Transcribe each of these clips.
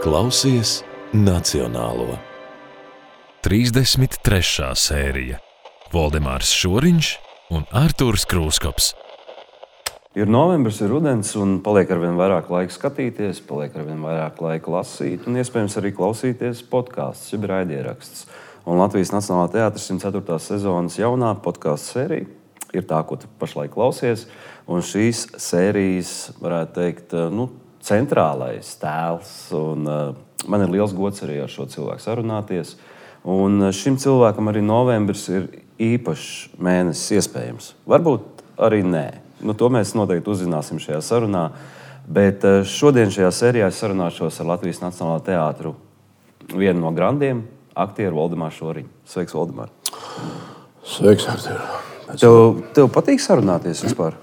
Klausies Nacionālo. 33. sērija. Voldemārs Šoriņš un Artūrs Krūskops. Ir novembris, ir rudens, un paliek arvien vairāk laika skatīties, paliek arvien vairāk laika lasīt, un iespējams arī klausīties podkāstus, jeb raidieraksts. Un Latvijas Nacionālā teātris 104. sezonas jaunā podkāstu sērija ir tā, ko tu pašlaik klausies. Un šīs sērijas, varētu teikt, centrālais tēls. Un, man ir liels gods arī ar šo cilvēku sarunāties. Un šim cilvēkam arī novembris ir īpašs mēnesis iespējams. Varbūt arī nē. To mēs noteikti uzzināsim šajā sarunā. Bet šodien šajā sērijā es sarunāšos ar Latvijas Nacionālā teātru vienu no grandiem, aktieru Voldemāru Šoriņu. Sveiks, Voldemār! Sveiks, Artur! Tev patīk sarunāties vispār?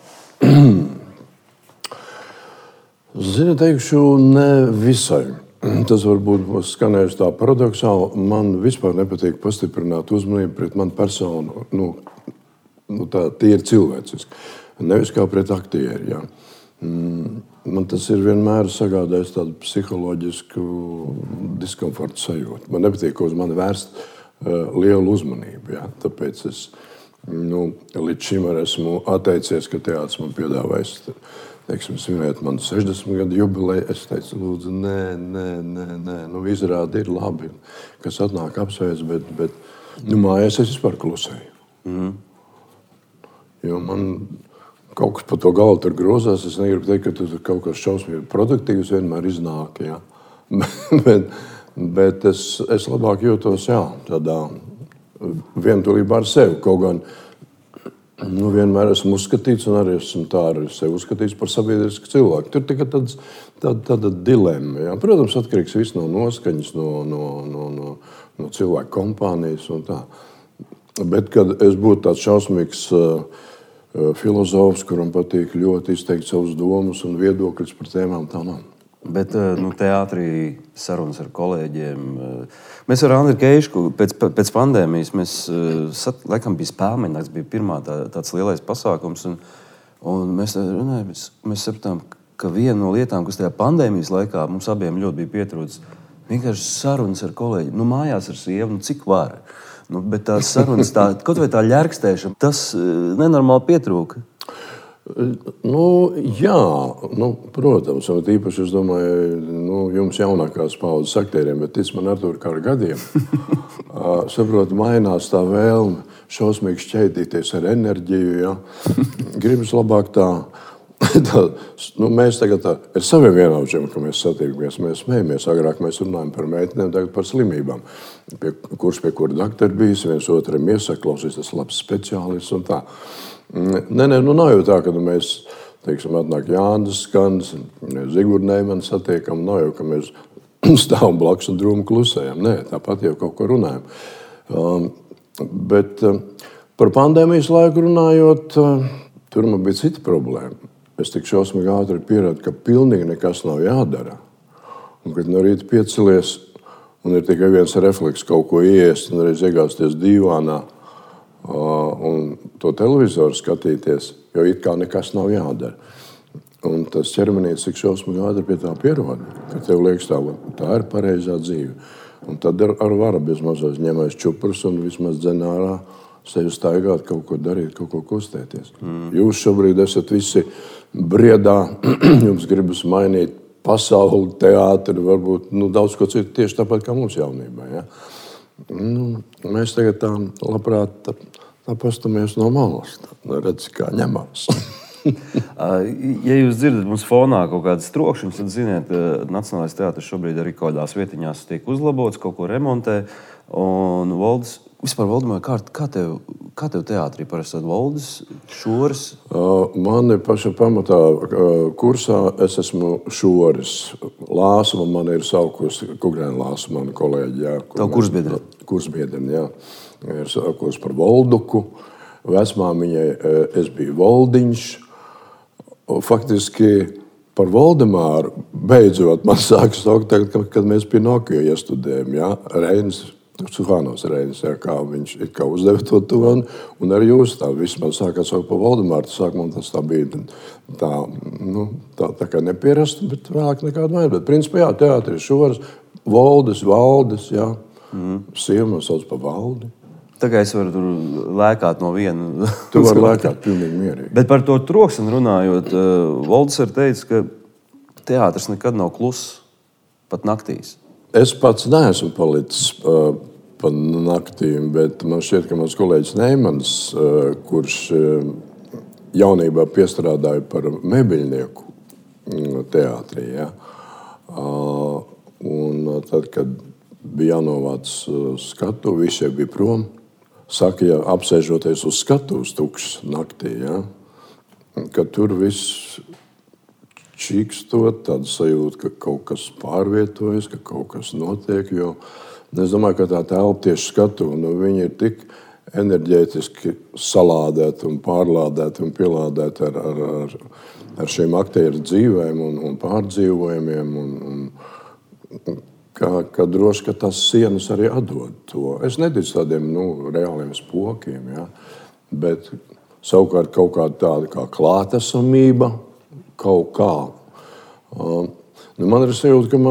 Zini, teikšu, ne visai. Tas varbūt būs skanējis tā paradoksāli. Man vispār nepatīk pastiprināt uzmanību pret manu personu. Tā ir cilvēciski. Nevis kā pret aktieri. Jā. Man tas ir vienmēr sagādājis tādu psiholoģisku diskomfortu sajūtu. Man nepatīk, ka uz mani vērst lielu uzmanību. Jā. Tāpēc es līdz šim esmu atteicies, ka teātris man piedāvājis svinēt manu 60 gadu jubileju. Es teicu, lūdzu, nē. Izrādi ir labi, kas atnāk apsveic, bet mājās es vispār klusēju. Jo man kaut kas pa to galvu tur grozās. Es negribu teikt, ka tur kaut kas šausmīgi produktīvs vienmēr iznāk. Jā. bet es labāk jūtos tādā vientulībā ar sevi. Kaut gan vienmēr esmu uzskatīts, un arī esmu tā ar sevi uzskatīts par sabiedrisku cilvēku. Tur tikai tāda dilemma. Jā. Protams, atkarīgs viss no noskaņas, no cilvēku kompānijas un tā. Bet, kad es būtu tāds šausmīgs filozofs, kuram patīk ļoti izteikt savus domas un viedokļus par tēmām, tā nav. Bet teātrī sarunas ar kolēģiem. Mēs ar Andriu Keišu pēc pandēmijas, laikam bija Spēlmeņnakts, bija pirmā tāds lielais pasākums. Un mēs sapratām, ka viena no lietām, kas tajā pandēmijas laikā mums abiem ļoti bija pietrūcis, vienkārši sarunas ar kolēģiem. Mājās ar sievu, cik var. Bet tās sarunas, kaut vai tā ļerkstēšana, tas nenormāli pietrūka. Jā, protams, un īpaši es domāju, jums jaunākās paudzes aktieriem, bet tic man Artūr kā ar gadiem, saprotu, mainās tā vēlme šausmīgi šķētīties ar enerģiju, ja. Gribas labāk mēs tagad ar saviem vienaudžiem, ka mēs satiekamies, mēs smējamies, agrāk mēs runājam par meitenēm, tagad par slimībām, kurš pie kura doktori bijis, viens otram iesaka, klausies, tas labs speciālists un tā. Nav jau tā, ka mēs, atnāk Jānis Skans, Zigurd Neimans satiekam, nav jau, ka mēs stāvam blakus un drūmi klusējam. Nē, tāpat jau kaut ko runājam. Bet par pandēmijas laiku runājot, tur man bija cita problēma. Es tik šausmīgi ātri pieradu, ka pilnīgi nekas nav jādara. Un kad no rīta piecelies un ir tikai viens refleks kaut ko iest un reiz iegāzties dīvānā, un to televizoru skatīties, jo it kā nekas nav jādara. Un tas ķermenītis tik šausmīgi ātri pie tā pierod, ka tev liekas tā ir pareizā dzīve. Un tad ar varu bez mazais ņemais čuprus un vismaz dzen ārā sevi staigāt, kaut ko darīt, kaut ko kustēties. Jūs šobrīd esat visi briedā, jums gribas mainīt pasauli, teātri, varbūt daudz ko citu tieši tāpat kā mums jaunībā. Ja? Mēs tagad tā labprāt pastamies no malas, redz, kā ņemās. Ja jūs dzirdat mums fonā kaut kādas trokšņas, tad ziniet, Nacionālais teātris šobrīd arī kaut kādās vietiņās tiek uzlabots, kaut ko remontē. Un Voldemār, kā tev teātrī parasti Voldis, Šoris? Mani paša pamatā kursā es esmu Šoris. Lāsuma man ir saukusi, Kugrēna Lāsuma, mani kolēģi. Jā, Tavu kursbiedri? Kursbiedri, jā. Ir saukusi par Volduku. Vecmāmiņai es biju Voldiņš. Faktiski par Voldemāru beidzot man sākas saukt, kad mēs Pinokio iestudējam. Ja? Reinis Suhānos Reinis, kā viņš kā uzdeva to toni, un arī jūs tā vismaz sākāt saukt pa Valdemārtu. Sākumā tas tā bija tā kā nepierasta, bet vēlāk nekāda vajag. Bet principā, jā, teātris Šoras, Valdes, jā. Sieva man sauc pa Valdi. Tā kā es varu tur lēkāt no viena. Tu vari lēkāt pilnīgi mierīgi. Bet par to troksni runājot, Valdis ir teicis, ka teātris nekad nav kluss, pat naktīs. Es pats neesmu palicis pa naktīm, bet man šķiet, ka mans kolēģis Neimans, kurš jaunībā piestrādāja par mēbeļnieku teātrī, ja? Un tad, kad bija jānovāc skatu, visi bija prom. Saka, ja apsēžoties uz skatuves tukšs naktī, ja? Ka tur viss čīkstot, tāda sajūta, ka kaut kas pārvietojas, ka kaut kas notiek, jo es domāju, ka tā telpa tieši skatuve, viņi ir tik enerģētiski salādēti un pārlādēti un pielādēti ar šiem aktieru dzīvēm un pārdzīvojumiem, un ka droši, ka tas sienas arī atdod to. Es neticu tādiem reāliem spokiem, ja? Bet savukārt kaut kāda tāda kā klātesamība, kaut kā. Man ir sajūta,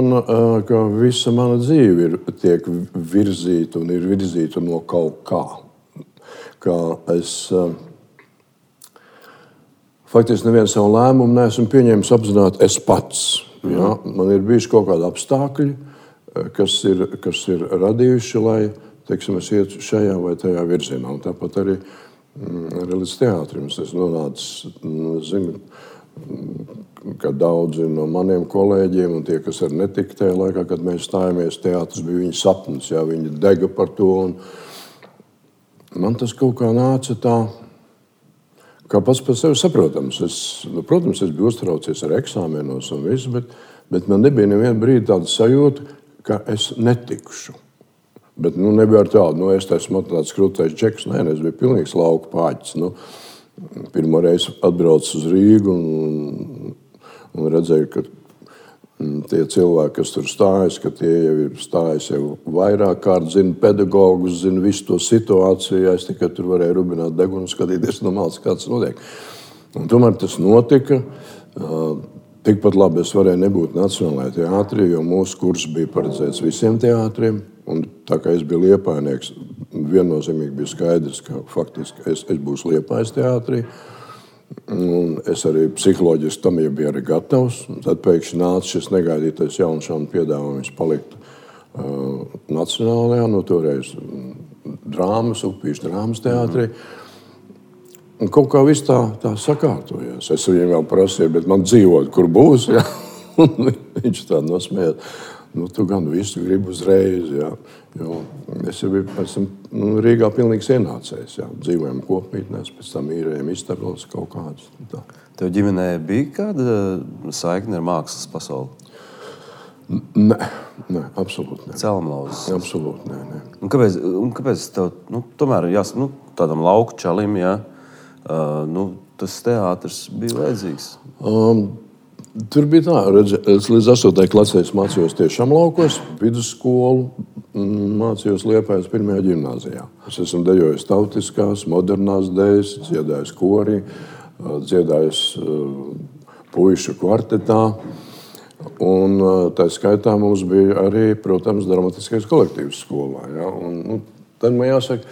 ka visa mana dzīve tiek virzīta un ir virzīta no kaut kā. Kā es faktiski nevienu savu lēmumu neesmu pieņēmis apzināti es pats. Ja? Man ir bijuši kaut kādi apstākļi, kas ir radījuši, lai, teiksim, es ietu šajā vai tajā virzienā. Un tāpat arī līdz teātrim. Es nonācu, zinu, ka daudzi no maniem kolēģiem un tie, kas arī netika tajā laikā, kad mēs stājāmies, teātris bija viņa sapnis, jā, viņi dega par to. Un man tas kaut kā nāca tā, kā pats par sevi saprotams. Protams, es biju uztraucies ar eksāmenos un visu, bet man nebija nevienu brīdi tāda sajūta, ka es netikšu. Bet nebija ar tādu, es esmu tāds krūtais džeks, es biju pilnīgs lauku pāķis. Pirmo reizi atbraucu uz Rīgu un redzēju, ka tie cilvēki, kas tur stājas, ka tie jau ir stājas jau vairāk kārt, zina pedagogus, zina visu to situāciju. Es tikai tur varēju rubināt degunu un skatīties no malas, kā tas notiek. Un tomēr tas notika. Tikpat labi es varēju nebūt Nacionālajā teātrī, jo mūsu kurs bija paredzēts visiem teātriem. Un tā kā es biju Liepājnieks, viennozīmīgi bija skaidrs, ka faktiski es būšu Liepājas teātrī. Un es arī psiholoģiski tam jau biju arī gatavs. Tad pēkšņi nāca šis negaidītais jaunšānu piedāvājums palikt Nacionālajā, toreiz drāmas, Upīšu drāmas teātrī. Un kaut kā viss tā sakārtojās. Es viņam vēl prasīju, bet man dzīvot, kur būs, ja? Un viņš tā nosmējās. Tu gan visu gribi uzreiz, ja? Jo es jau biju Rīgā pilnīgs ienācējs, ja? Dzīvojam kopmītnēs, pēc tam īrējam istabas kaut kādas. Tev ģimenē bija kāda saikne ar mākslas pasauli? Nē, absolūti nē. Celmlauzes? Absolūti nē. Un kāpēc tev, tomēr tādam lauku čalim, ja? Tas teātris bija vajadzīgs? Tur bija tā, es līdz 8. klasē mācījos tiešām laukos, vidusskolu, mācījos Liepājas 1. ģimnāzijā. Es esmu dejojis tautiskās, modernās dejas, dziedājis korī, dziedājis puišu kvartetā. Un tā skaitā mums bija arī, protams, dramatiskais kolektīvs skolā. Ja? Un tad man jāsaka,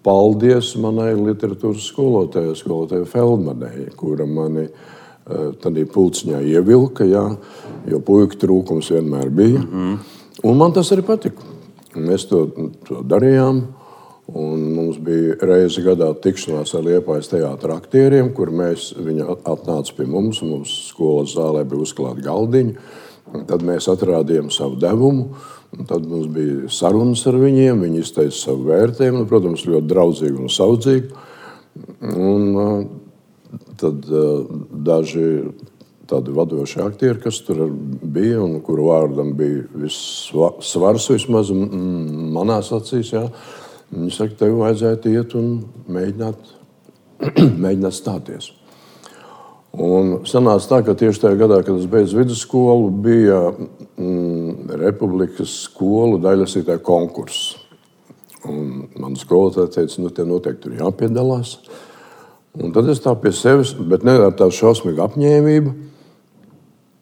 paldies manai literatūras skolotājai Feldmanai, kura mani tādā pulciņā ievilka, ja? Jo puiku trūkums vienmēr bija. Un man tas arī patika. Mēs to darījām. Un mums bija reizi gadā tikšanās ar Liepājas teātra aktieriem, kur viņi atnāca pie mums, un mums skolas zālē bija uzklāti galdiņi. Tad mēs atrādījām savu devumu, un tad mums bija sarunas ar viņiem, viņi izteica savu vērtējumu, protams, ļoti draudzīgi un saudzīgi. Un tad daži tādi vadoši aktieri, kas tur bija, un kuru vārdam bija viss svars vismaz manās acīs, jā. Viņi saka, tev vajadzētu iet un mēģināt stāties. Un sanāca tā, ka tieši tajā gadā, kad es beidzu vidusskolu, bija Republikas skolu daļlasītāju konkurss. Un man skolotāja teica, te noteikti tur jāpiedalās. Un tad es tā pie sevis, bet ne ar tādu šausmīgu apņēmību.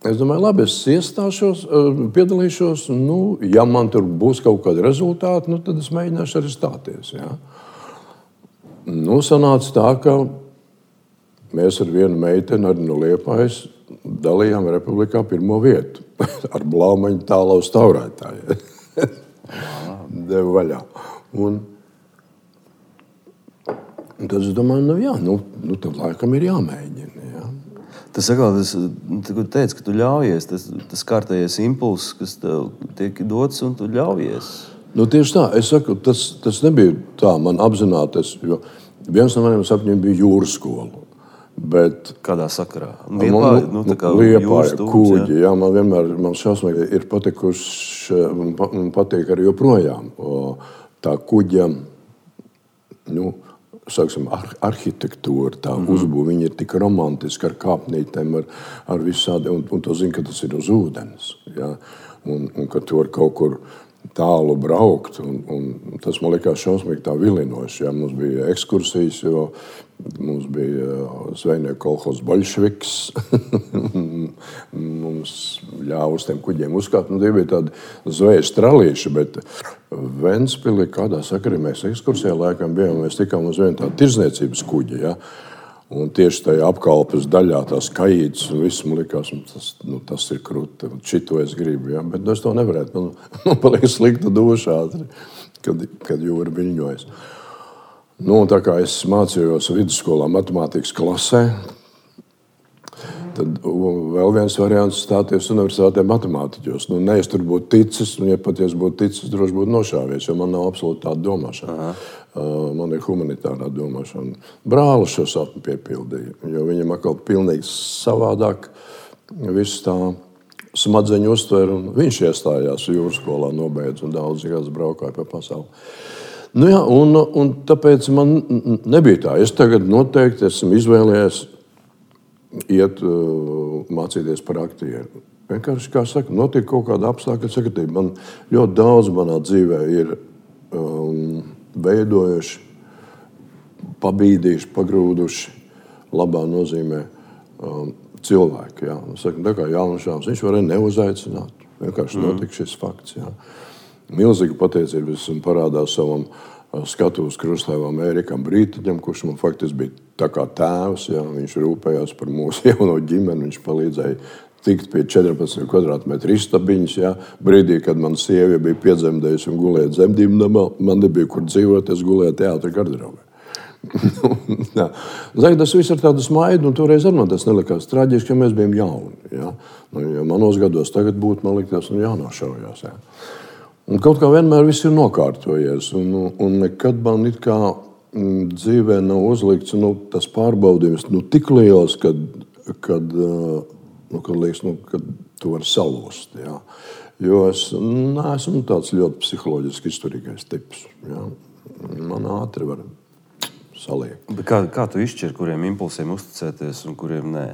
Es domāju, labi, es iestāšos, piedalīšos. Ja man tur būs kaut kādi rezultāti, tad es mēģināšu arī stāties. Ja. Sanāca tā, ka mēs ar vienu meiteni, arī no Liepājas, dalījām Republikā 1. vietu ar blaumaņu tālaus taurētāju. Devu vaļā. Un tad es domāju, tad laikam ir jāmēģina. Ja. Tas atkal, tu teici, ka tu ļaujies, tas kārtējais impulss, kas tev tiek dots, un tu ļaujies. Tieši tā, es saku, tas nebija tā man apzināties, jo viens no maniem sapņiem bija jūras skola. Bet kādā sakarā? Liepāja, Kūģi. Jā, man vienmēr šausmīgi ir patikuši, un patīk arī joprojām. Tā Kuģa, arhitektūra, tā uzbūve, viņi ir tik romantiski ar kāpnītēm, ar visādi, un to zina, ka tas ir uz ūdens. Ja? Un ka tu vari kaut kur tālu braukt, un tas man likās šausmīgi tā vilinoši. Ja? Mums bija ekskursijas, jo mums bija zvejnieku kolhozs Boļševiks. Mums ļāva uz tiem kuģiem uzkāpt. Tie bija tādi zvejas tralīši, bet Ventspilī kādā sakarā mēs ekskursijā laikam bijām. Mēs tikām uz vienu tādu tirdzniecības kuģi. Ja? Un tieši tajā apkalpes daļā tās kajītes un viss man likās, tas ir krūti. Šito es gribu, ja? Bet es to nevarētu. Man paliek slikta duša, kad jūra viļņojas. Tā kā es mācījos vidusskolā matemātikas klasē, tad vēl viens variants stāties universitātē matemātiķos. Es tur būtu ticis, un ja pat es būtu ticis, droši būtu nošāvies, jo man nav absolūti tāda domāšana. Man ir humanitārā domāšana. Brālis šo sapni piepildīja, jo viņam atkal pilnīgi savādāk viss tā smadzeņu uztver, un viņš iestājās jūras skolā, nobeidz, un daudz gadus braukāja pa pasauli. Un tāpēc man nebija tā. Es tagad noteikti esmu izvēlējies iet mācīties par aktieru. Vienkārši, kā saka, notiek kaut kāda apstākļa sakatība. Man ļoti daudz manā dzīvē ir veidojuši, pabīdījuši, pagrūduši, labā nozīmē cilvēki. Jā. Saka, tā kā Jānušāns, viņš varēja neuzaicināt. Vienkārši notika šis fakts. Jā. Milzīga pateicība esmu parādās savam skatuves krustāvam Ērikam Brītiņam, kurš man faktiski bija tā kā tēvs. Ja? Viņš rūpējās par mūsu jauno ģimeni, viņš palīdzēja tikt pie 14 kvadrātmetru istabiņas. Ja? Brīdī, kad man sieva bija piedzemdējusi un gulēja dzemdību namā, man nebija kur dzīvot, es gulēju teātra garderobē. Tas viss ir tāda smaida, un toreiz ar man tas nelikās traģiski, ka mēs bijām jauni. Ja? Ja manos gados tagad būtu, man likās, jānošaujās. Ja? Un kaut kā vienmēr viss ir nokārtojies, un nekad man it kā dzīvē nav uzlikts tas pārbaudījums tik liels, kad liekas, kad tu vari salūst. Ja? Jo es neesmu tāds ļoti psiholoģiski izturīgais tips. Ja? Man ātri var saliekt. Bet kā tu izšķiri, kuriem impulsiem uzticēties un kuriem nē?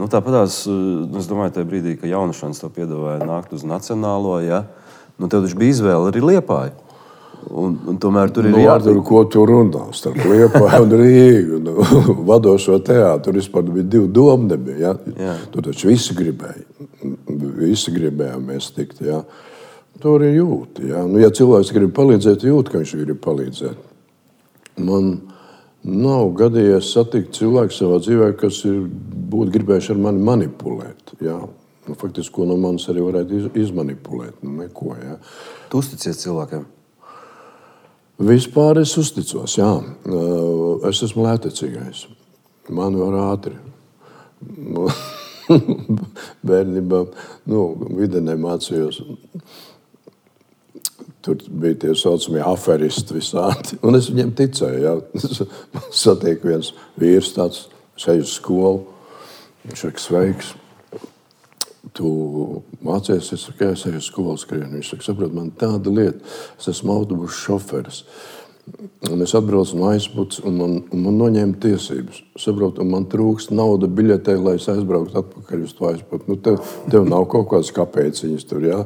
Tāpatās, es domāju, tajā brīdī, ka Jānušāns tev piedāvāja nākt uz Nacionālo, ja? Tev taču bija izvēle arī Liepāju. Un tomēr tur ir jātur, ko tu runā starp Liepāju un Rīgu. Vadošo teātru vispār bija 2 domnebi. Ja? Tur taču visi gribēja. Visi gribējām mēs tikt. Ja? Tur ir jūt. Ja? Ja cilvēks grib palīdzēt, jūt, ka viņš grib palīdzēt. Man nav gadījies satikt cilvēku savā dzīvē, kas būtu gribējuši ar mani manipulēt. Ja? Faktiski, ko no manis arī varētu izmanipulēt. Neko, ja. Tu uzticies cilvēkiem? Vispār es uzticos, jā. Es esmu lētecīgais. Man var ātri. Bērnībā, videnē mācījos. Tur bija tie saucamie aferisti visādi. Un es viņiem ticēju, jā. Satieku viens vīrs tāds, eju uz skolu. Viņš ir sveiks. Tu mācies, es saku, es eju uz skolu skrienu. Viņš saka, saprot, man tāda lieta, es esmu autobusu šoferis. Un es atbraucu no aizputs, un man noņēma tiesības. Saprotu, un man trūkst nauda biļetē, lai es aizbrauktu atpakaļ uz to aizputu. Tev nav kaut kādas kapēciņas tur, jā?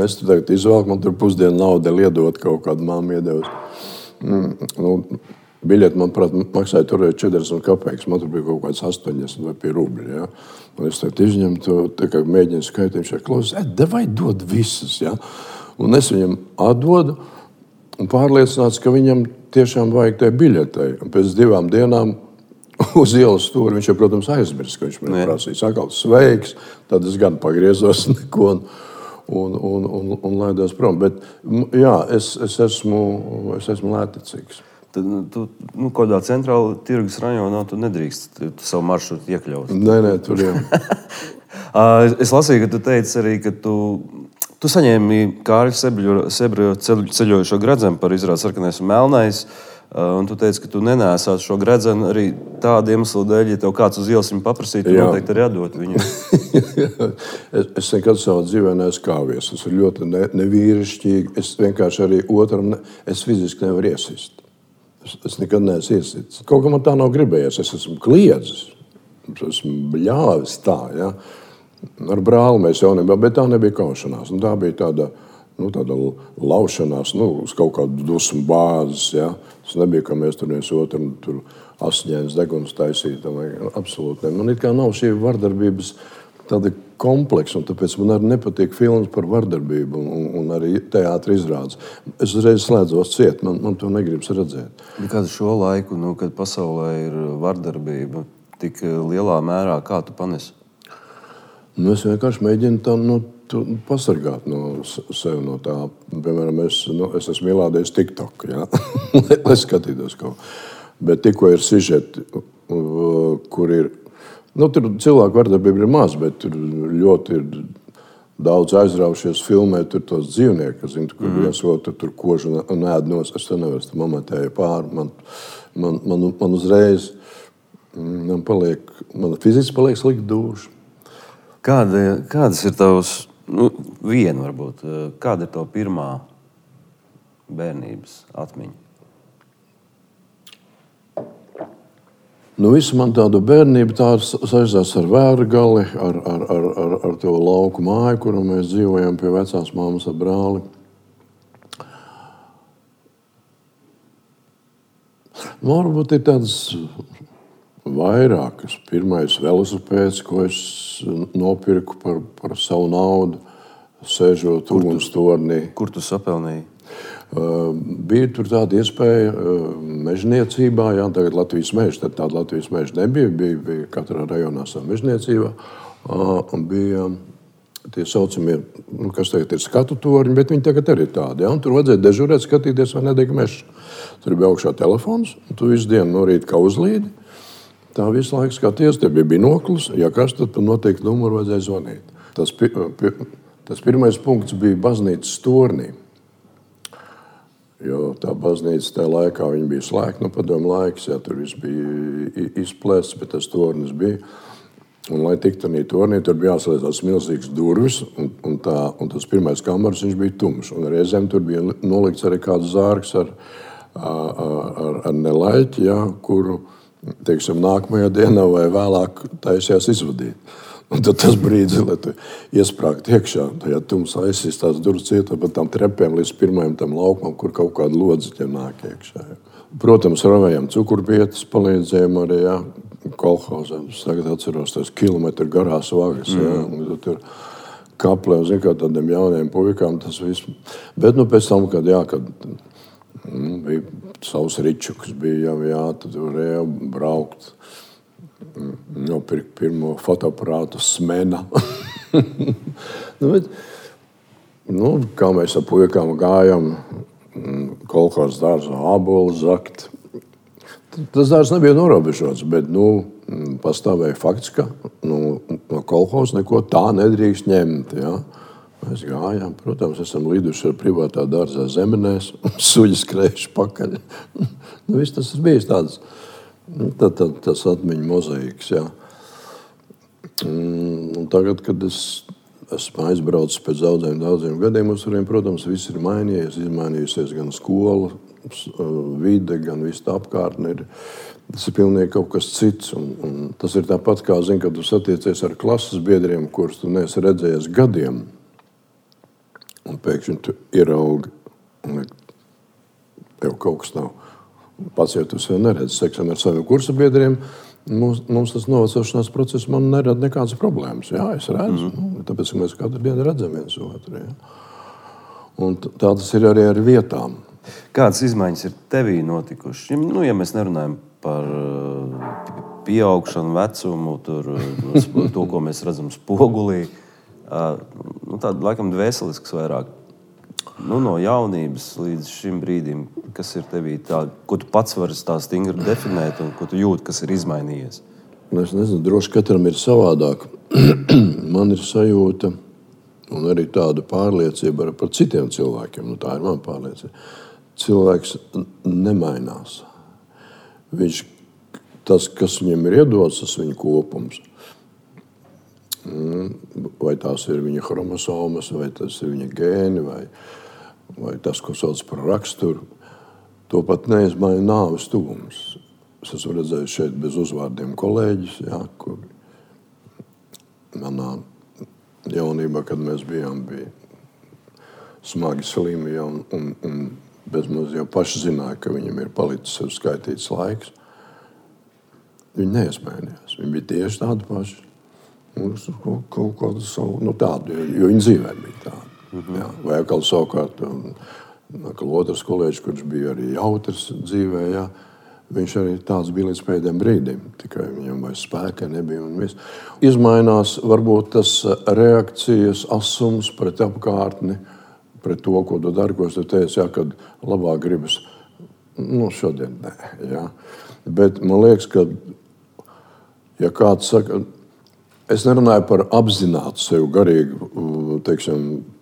Es tur tagad izvēlku, man tur pusdienu nauda liedot kaut kādu māmu iedevusi. Biļeti, manuprāt, maksāja tur 40 kapeikas, man tur bija kaut kāds 80 vai pie rubļi, jā? Un es tagad izņemu to, tā kā mēģinu skaitīt, viņš klausās, davai dod visas, jā? Un es viņam atdodu, un pārliecināts, ka viņam tiešām vajag tai biļetei. Un pēc 2 dienām uz ielas stūri viņš jau, protams, aizmirst, ka viņš man prasīja. Sakal, sveiks, tad es gan pagriezos neko un laidos prom. Bet, jā, es esmu lēticīgs. Tad tu kādā centrāla tirgus rajonā tu nedrīkst savu maršrutu iekļaut. Nē, tur jau. Es lasīju, ka tu teici arī, ka tu saņēmi Kārļa Sebra ceļojošo gredzenu par izrādi Sarkanais un Melnais, un tu teici, ka tu nenēsāt šo gredzenu arī tādu iemeslu dēļ, ja tev kāds uz ielas viņu paprasītu, tu noteikti arī atdot viņu. Es nekad savā dzīvē neesmu kāvies. Tas ir ļoti nevīrišķīgi. Es vienkārši arī otram, es fiziski nevaru iesist. Es nekad neesmu iesits. Kaut kā man tā nav gribējies. Es esmu kliedzis. Es esmu bļāvis tā, ja. Ar brāli mēs jaunībā, bet tā nebija kaušanās. Tā bija tāda laušanās, uz kaut kādu dusmu bāzes, ja. Tas nebija, ka mēs tur viens otram tur asiņainas deguns taisītam. Absolūti ne. Man it kā nav šī vardarbības tāda kompleksa, un tāpēc man arī nepatīk filmas par vardarbību un arī teātra izrādes. Es uzreiz slēdzos ciet, man to negribas redzēt. Kādu šo laiku, kad pasaulē ir vardarbība tik lielā mērā, kā tu panesi? Es vienkārši mēģinu tā pasargāt no sevi no tā. Piemēram, es esmu ielādējis TikTok, ja? Lai skatītos kaut. Bet tikko ir sižeti, kur ir... Tur cilvēku vardarbība ir maz, bet tur ļoti ir daudz aizraušies filmēt tur tos dzīvniekus, kur viens otru tur kožu un ēd nos. Es to nevaru, tā mamatēja pāri. Man uzreiz, man fiziski paliek slikti duša. Kādas ir tavas, viena varbūt, kāda ir tava pirmā bērnības atmiņa? Visu man tādu bērnību tā saistās ar Vērgali, ar to lauku māju, kuru mēs dzīvojam pie vecās māmas ar brāli. Varbūt ir tādas vairākas. Pirmais velosipēds, ko es nopirku par savu naudu, sēžot ugunstornī. Kur tu sapelnīji? Bija tur tāda iespēja mežniecībā, jā, tagad Latvijas meža, tad tāda Latvijas meža nebija, bija katrā rajonā savu mežniecībā, un bija tie saucamie, kas tagad ir skatu torņi, bet viņi tagad arī tādi, jā, un tur vajadzēja dežurēt, skatīties, vai nedeg mežs. Tur bija augšā telefons, un tu visu dienu no rīta kā uzlīdi, tā visu laiku skaties, te bija binoklis, ja kas, tad noteikti numuru vajadzēja zvanīt. Tas pirmais punkts bija baznīcas tornī. Jo tā baznīca tajā laikā bija slēgta, padomu laiks, jā, tur viss bija izplēsts, bet tas tornis bija. Un, lai tiktu tādā tornī, tur bija jāslēdz tās milzīgas durvis, un tas pirmais kameras viņš bija tumšs. Un reizēm tur bija nolikts arī kāds zārks ar nelaiķi, jā, kuru, teiksim, nākamajā dienā vai vēlāk taisījās izvadīt. Un tad tas brīdis, lai tu iesprāgt iekšā, tajā tumsā aizsīs tās durvis cietā pa tām trepēm līdz pirmajam tam laukumam, kur kaut kāda lodziķa nāk iekšā. Protams, ravējām cukurbietas, palīdzējām arī, jā, kolhozam. Es tagad atceros tās kilometru garās vagas, jā, un tur kaplē, un zin kā tādiem jauniem puikām tas viss. Bet, pēc tam, kad bija savs ričuks, bija jā, tad varēja braukt. Nopirkt pirmo fotoaparātu Smena. Kā mēs ar puikām gājam, kolhozas dārzā ābolu zakt. Tas dārzs nebija norobežots, bet pastāvēja fakts, ka no kolhozas neko tā nedrīkst ņemt. Ja? Mēs gājām, protams, esam liduši ar privātā dārzā zemenēs, suļi skrējuši pakaļ. Viss tas ir bijis tāds. Tas atmiņu mozaīks, jā. Un tagad, kad es esmu aizbraucis pēc daudziem gadiem uz turieni. Protams, viss ir mainījies, izmainījusies gan skola, vide, gan viss tā apkārtne. Tas ir pilnīgi kaut kas cits. Un tas ir tāpat kā, kad tu satiecies ar klases biedriem, kurus tu neesi redzējies gadiem. Un pēkšņi tu ieraugi, un tev kaut kas nav. Pats jau tu sev neredzi. Teiksim, ar saviem kursa biedriem mums tas novecošanās process man nerada nekādas problēmas. Jā, es redzu. Tāpēc mēs katru dienu redzam viens otru. Jā. Un tā tas ir arī ar vietām. Kādas izmaiņas ir tevī notikušas? Ja mēs nerunājam par pieaugšanu, vecumu, to, ko mēs redzam spogulī, tāda laikam dvēselisks vairāk. No jaunības līdz šim brīdim, kas ir tevī tā, ko tu pats vari tā stingri definēt un ko tu jūti, kas ir izmainījies? Es nezinu, droši katram ir savādāk. Man ir sajūta un arī tāda pārliecība par citiem cilvēkiem. Tā ir mana pārliecība. Cilvēks nemainās. Tas, kas viņam ir iedots, tas viņa kopums. Vai tās ir viņa chromosomas, vai tas ir viņa gēni, vai tas, ko sauc par raksturu, to pat neizmaina nāves tuvums. Es esmu redzējis šeit bez uzvārdiem kolēģis, kur manā jaunībā, kad mēs bijām, bija smagi slimi un bezmaz jau paši zināja, ka viņam ir palicis sev skaitīts laiks. Viņi neizmainījās. Viņi bija tieši tādi paši. Kaut kādu savu, tādu, jo viņa dzīvē bija tāda. Jā. Vai atkal savukārt, otrs kolēģis, kurš bija arī jautrs dzīvē, jā, viņš arī tāds bija līdz pēdējiem brīdim. Tikai viņam vairs spēka nebija un viss. Izmainās varbūt tas reakcijas asums pret apkārtni, pret to, ko tu dari, ko tu teici, kad labāk gribas. Šodien nē. Jā. Bet man liekas, ka ja kāds saka, es nerunāju par apzinātu sev garīgu,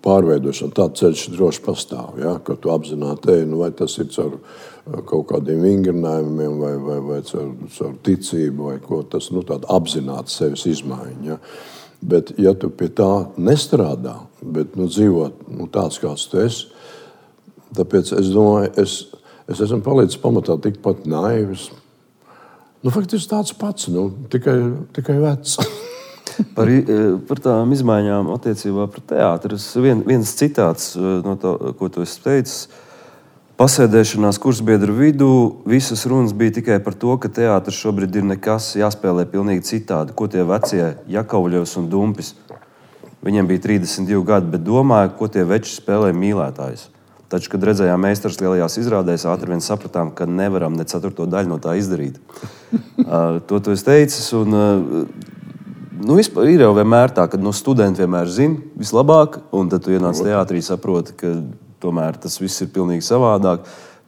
pārveidošanu. Tāds ceļš droši pastāv, ja? Ka tu apzināti, vai tas ir caur kaut kādiem vingrinājumiem, vai caur ticību, vai ko tas, tāda apzināta sevis izmaiņa. Ja? Bet, ja tu pie tā nestrādā, bet dzīvot tāds, kāds tu esi, tāpēc es domāju, es esmu palicis pamatā tikpat naivs. Faktiski tāds pats, tikai vecs. Par tām izmaiņām attiecībā pret teātri. Viens citāts, no tā, ko tu esi teicis, pasēdēšanās kursbiedru vidū visas runas bija tikai par to, ka teātris šobrīd ir nekas, jāspēlē pilnīgi citādi. Ko tie vecie Jakovļevs un Dumpis? Viņiem bija 32 gadi, bet domāju, ko tie veči spēlē mīlētājus. Taču, kad redzējām meistars lielajās izrādēs, ātri vien sapratām, ka nevaram ne 4. daļu no tā izdarīt. To tu esi teicis. Vispār ir jau vienmēr tā, ka studenti vienmēr zina vislabāk, un tad tu ienāc teātrī, saproti, ka tomēr tas viss ir pilnīgi savādāk.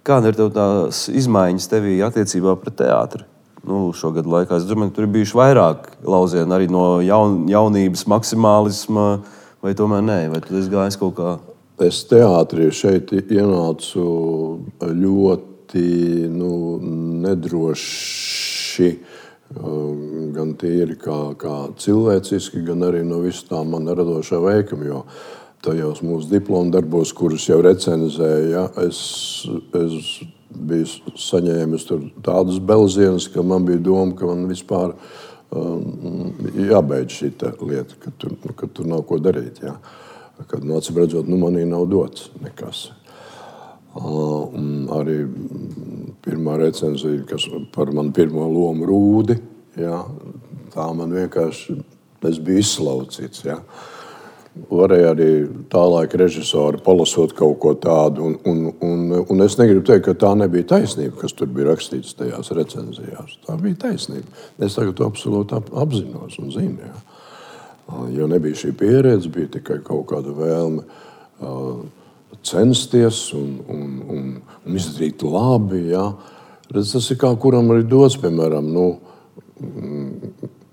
Kāda ir tev tās izmaiņas tevī attiecībā pret teātri? Šogad laikā es domāju, ka tur ir bijuši vairāk lauzieni arī no jaunības maksimālisma, vai tomēr nē, vai tu esi gājis kaut kā? Es teātrī šeit ienācu ļoti nedroši, gan tīri kā cilvēciski, gan arī no visu tā man radošā veikuma, jo tajos mūsu diplomu darbos, kurus jau recenzēja, es biju saņēmis tur tādas belzienus, ka man bija doma, ka man vispār jābeidz šī lieta, ka tur nav ko darīt, jā. Kad acīm redzot, manī nav dots nekas. Arī pirmā recenzija, kas par manu pirmo lomu Rūdi, jā, tā man vienkārši, es biju izslaucīts. Jā. Varēja arī tā laika režisori palasot kaut ko tādu, un es negribu teikt, ka tā nebija taisnība, kas tur bija rakstīts tajās recenzijās. Tā bija taisnība. Es tagad to absolūti apzinos un zinu, jā. Jo nebija šī pieredze, bija tikai kaut kāda vēlme censties un izdarīt labi. Ja. Tas ir kā kuram arī dots, piemēram,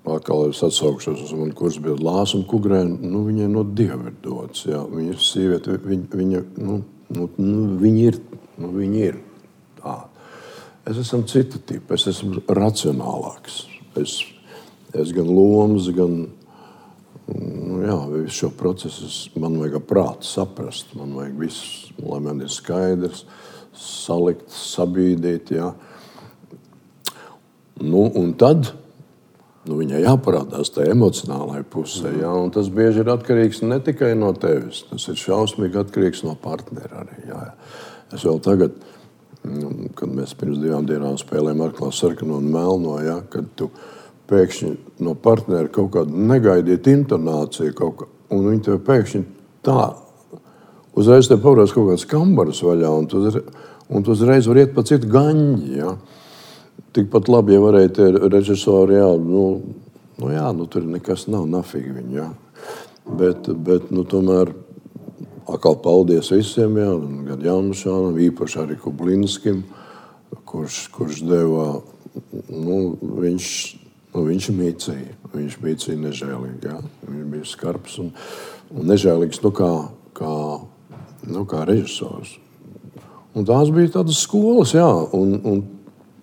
atkal es atsaukšos uz manu kursbiedru Lāsu un Kugrēnu, viņai no Dieva ir dots. Ja. Viņa sieviete, viņa ir tā. Es esmu cita tipa, es esmu racionālāks. Es gan lomas, gan visu šo procesu man vajag prātu saprast. Man vajag visu, lai man ir skaidrs, salikt, sabīdīt. Jā. Un tad viņai jāparādās tā emocionālajai pusē. Jā, un tas bieži ir atkarīgs ne tikai no tevis. Tas ir šausmīgi atkarīgs no partnera arī. Jā. Es vēl tagad, kad mēs pirms 2 dienām spēlējām Arklā sarkano un melno, jā, kad tu pēkšņi no partnera kaut kādu negaidīt intonāciju, un viņi tev pēkšņi tā, uzreiz tev pavarās kaut kāds kambaras vaļā, un tu uzreiz var iet pa citu gaņģi, jā. Tikpat labi, ja varēja tie režisori, jā, tur nekas nav, nafīgi viņi, jā. Bet tomēr, atkal paldies visiem, jā, gan Jānušānam, īpaši arī Kublinskim, kurš deva, viņš mīcīja. Viņš mīcīja nežēlīgi. Jā. Viņš bija skarbs un nežēlīgs kā režisors. Un tās bija tādas skolas, jā. Un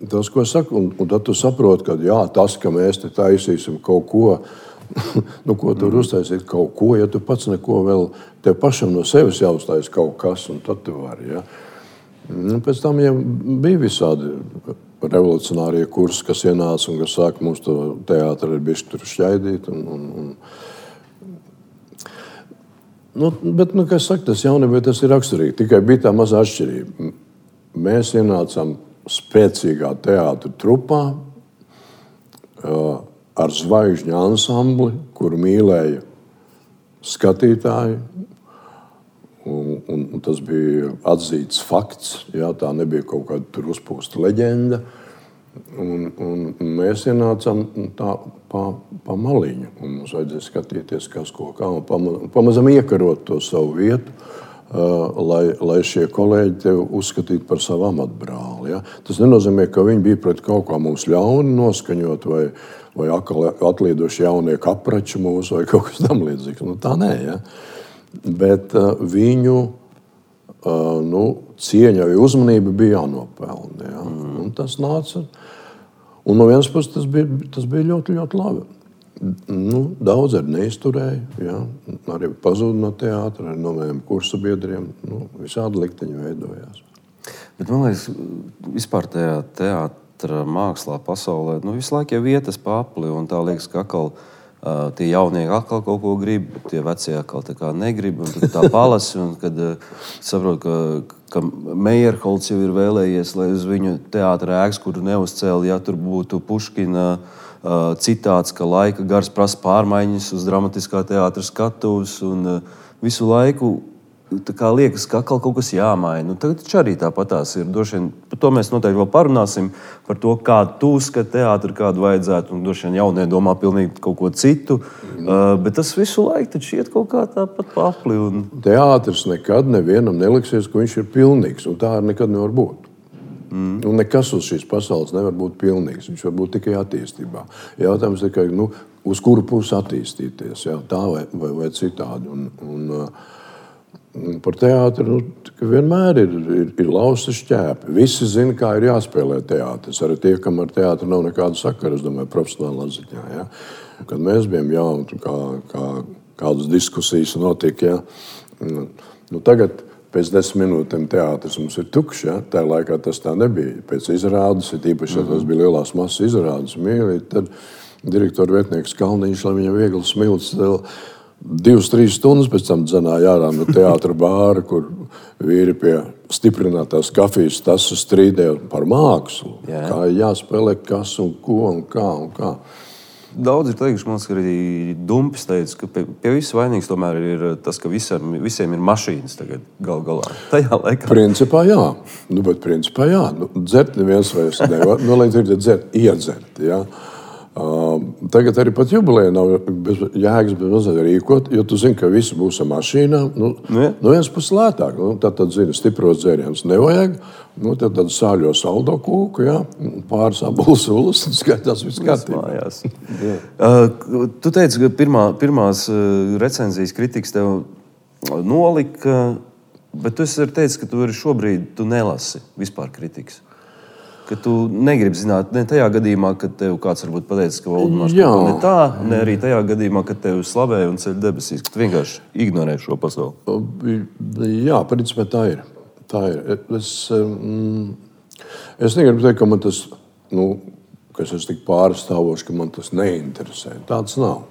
tas, ko es saku, un tad tu saproti, ka jā, tas, ka mēs te taisīsim kaut ko, ko tur uztaisīt kaut ko, ja tu pats neko vēl, tev pašam no sevis jāuztais kaut kas, un tad tu vari, jā. Pēc tam jau bija visādi revolucionārie kursi, kas ienāca un kas sāka mums to teātri ar bišķi tur šķaidīt. Bet, kā es saku, tas jaunībā tas ir raksturīgi. Tikai bija tā mazā atšķirība. Mēs ienācām spēcīgā teātra trupā ar zvaigžņu ansambli, kuru mīlēja skatītāji. Un tas bija atzīts fakts, jā, tā nebija kaut kāda tur uzpūsta leģenda. Un mēs ienācām tā pa maliņu, un mums vajadzēja skatīties, kas ko kā, un pamazam iekarot to savu vietu, lai šie kolēģi tevi uzskatītu par savu amatbrāli. Ja? Tas nenozīmē, ka viņi bija pret kaut kā mums ļauni noskaņot, vai atlīdoši jaunie kaprači mūsu, vai kaut kas tam līdzīgs. Tā nē, ja? Bet viņu cieņa vai uzmanība bija jānopelna. Ja? Un tas nāca. Un no vienas puses tas bija ļoti, ļoti labi. Daudz arī neizturēja. Ja? Arī pazuda no teātra, arī no maniem kursabiedriem. Visādi likteņi veidojās. Bet man liekas, vispār tajā teātra mākslā pasaulē visu laiku jau vietas pa apli, un tā liekas, ka atkal tie jaunieki atkal kaut ko grib, tie vecie atkal tā kā negrib, un tad tā palasi, un kad saprot, ka Meyerholds jau ir vēlējies, lai uz viņu teātra ēkas, kuru neuzcēla, ja tur būtu Puškina citāts, ka laika gars prasa pārmaiņas uz dramatiskā teātra skatuves, un visu laiku tā kā liekas, ka atkal kaut kas jāmaina. Tagad taču arī tāpatās ir. Droši vien, par to mēs noteikti vēl parunāsim, par to, kādu tu uzskati teātri, kādu vajadzētu, un droši vien jaunie domā pilnīgi kaut ko citu. Bet tas visu laiku taču iet kaut kā tāpat pa apli. Teātris nekad nevienam neliksies, ka viņš ir pilnīgs, un tā nekad nevar būt. Un nekas uz šīs pasaules nevar būt pilnīgs. Viņš var būt tikai attīstībā. Jautājums tikai, uz kuru pusi attīstīties, jā, tā vai citādi. Par teātri vienmēr ir lausta šķēpi. Visi zina, kā ir jāspēlē teātris. Arī tie, kam ar teātri nav nekāda sakara, es domāju, profesionālā ziņā. Ja? Kad mēs bijām jauni, kādas diskusijas notika, ja? Tagad pēc 10 minūtēm teātris mums ir tukšs. Ja? Tā laikā tas tā nebija. Pēc izrādes, īpaši, ja tas bija lielās masas izrādes, mīlīt, tad direktora vietnieks Kalniņš, lai viņam viegli smilts, 2-3 stundas pēc tam dzenāja ārā no teātra bāra, kur vīri pie stiprinātās kafijas tasu strīdēja par mākslu. Jā. Kā jāspēlē kas un ko un kā. Daudz ir teikuši, man liekas, arī Dumpis teica, ka pie viss vainīgs tomēr ir tas, ka visiem ir mašīnas tagad galā. Tajā laikā. Principā jā. Bet principā jā. Dzert neviens vairs nevar. Lai dzert, iedzert, jā. Tagad arī pat jubilejā nav jēgas bez rīkot, jo tu zini, ka visi būs ar mašīnām. Viens puses lētāk. Tad zini, stipros dzērienus nevajag. Tad sāļo saldo kūku, jā, pāris abulas ulas, un skaitās viss kārtībā. Tu teici, ka pirmās recenzijas kritikas tev nolika, bet tu esi teicis, ka tu arī šobrīd nelasi vispār kritikas. ka tu negribi zināt, ne tajā gadījumā, kad tev kāds varbūt pateicis, ka Voldemārs kaut ko ne tā, ne arī tajā gadījumā, kad tev slavēja un ceļ debesīs, ka tu vienkārši ignorē šo pasauli. Jā, principā tā ir. Es negribu teikt, ka man tas, ka es esmu tik pārstāvošs, ka man tas neinteresē. Tāds nav.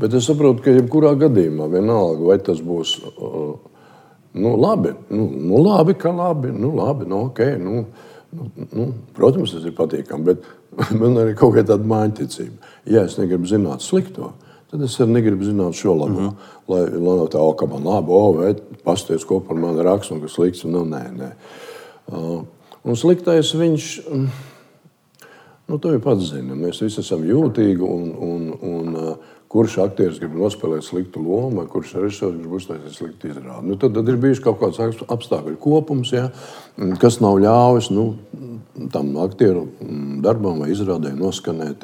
Bet es saprotu, ka jebkurā gadījumā vienalga, vai tas būs labi, labi, ka labi, ok, protams, tas ir patīkami, bet man arī kaut kā tāda māņticība. Ja es negribu zināt slikto, tad es arī negribu zināt šo labo. Lai nav tā, ka man labi, vai pasties, ko par mani raksta un kas slikts, nē. Un sliktais viņš, to jau pats zina. Mēs visi esam jūtīgi un kurš aktieris grib nospēlēt sliktu lomu, vai kurš režisors grib uztaisīt sliktu izrādi. Tad ir bijuši kaut kāds apstākļu kopums, kas nav ļāvis tam aktieru darbam vai izrādē noskanēt.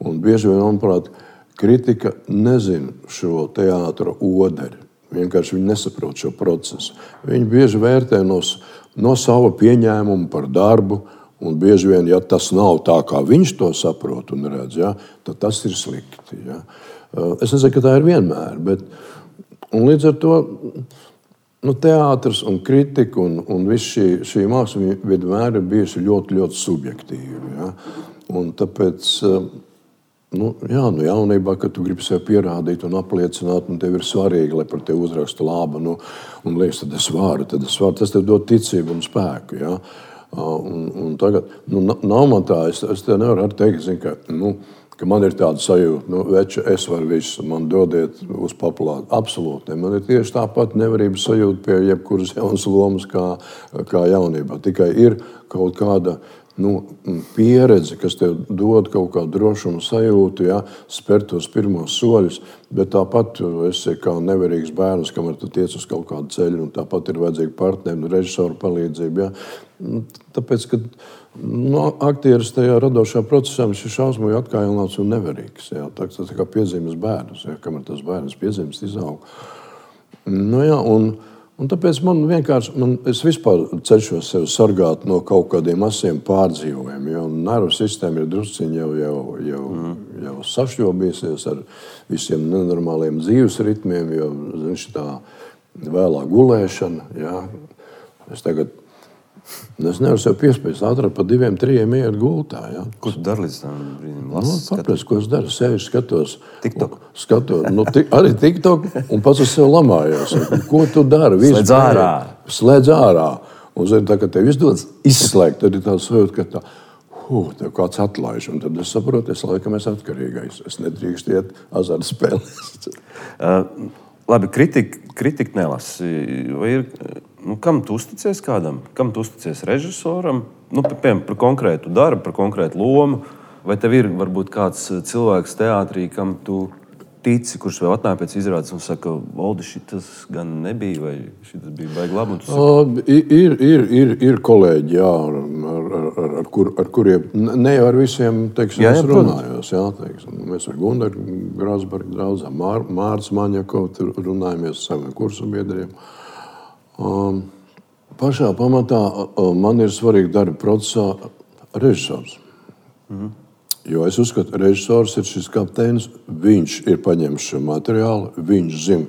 Un bieži vien, manuprāt, kritika nezina šo teātra oderi. Vienkārši viņi nesaprot šo procesu. Viņi bieži vērtē no sava pieņēmuma par darbu, un bieži vien, ja tas nav tā, kā viņš to saprot un redz, tad tas ir slikti. Es nezinu, ka tā ir vienmēr, bet līdz ar to teātris un kritika un viss šī māksla vienmēr ir bijusi ļoti, ļoti subjektīva. Un tāpēc, jaunībā, kad tu gribi sev pierādīt un apliecināt, un tev ir svarīgi, lai par tevi uzraksta labu, un liekas, tad es varu, tas tev dod ticību un spēku, Un tagad, nav man tā, es te nevaru teikt, ka man ir tāda sajūta, veči, es varu visu, man dodiet uz populāru. Absolūti, man ir tieši tāpat nevarības sajūta pie jebkuras jaunas lomas kā jaunībā. Tikai ir kaut kāda pieredze, kas tev dod kaut kādu drošumu sajūtu, spērt tos pirmos soļus, bet tāpat tu esi kā nevarīgs bērns, kamēr tu tiec uz kaut kādu ceļu, un tāpat ir vajadzīga partneri un režisoru palīdzība. Tāpēc, ka aktieris tajā radošā procesā viņš ir šausmīgi atkailināts un nevarīgs. Tas ir kā piezīmes bērns, kamēr tas bērns piezīmes izaug. Un tāpēc es vispār cenšos sevi sargāt no kaut kādiem asiem pārdzīvojumiem, jo nervu sistēma ir drusciņi jau sašķobīsies ar visiem nenormāliem dzīves ritmiem, jo tā vēlā gulēšana. Es nevaru sev piespiest ātrāk pa 2-3 iet gultā. Ko tu dari līdz tam brīdim? Kāpēc, ko es daru? Sevi skatos. TikTok. Arī TikTok un pats uz sevi lamājos. Ko tu dari? Slēdz ārā. Un tā, ka tev izdodas izslēgt, tad ir tā sajūta, ka tev kāds atlaiž. Un tad es saprotu, laikam es atkarīgais. Es nedrīkst iet azartspēlēs. Labi, kritika nelasi. Vai ir... kam tu uzticies kādam? Kam tu uzticies režisoram? Piemēram, par konkrētu darbu, par konkrētu lomu. Vai tev ir varbūt kāds cilvēks teātrī, kam tu tici, kurš vēl atnāk pēc izrādes un saka, Voldi, šitas gan nebija, vai šitas bija baigi labi? Ir kolēģi, ar kuriem, ne jau ar visiem, es runājos. Mēs ar Gundaru Grāsbergu draudzām, Mārts Maņakovu runājamies ar saviem kursu biedriem. Pašā pamatā man ir svarīgi darba procesā režisors. Jo es uzskatu, ka režisors ir šis kapteinis, viņš ir paņēmis šo materiālu, viņš zina,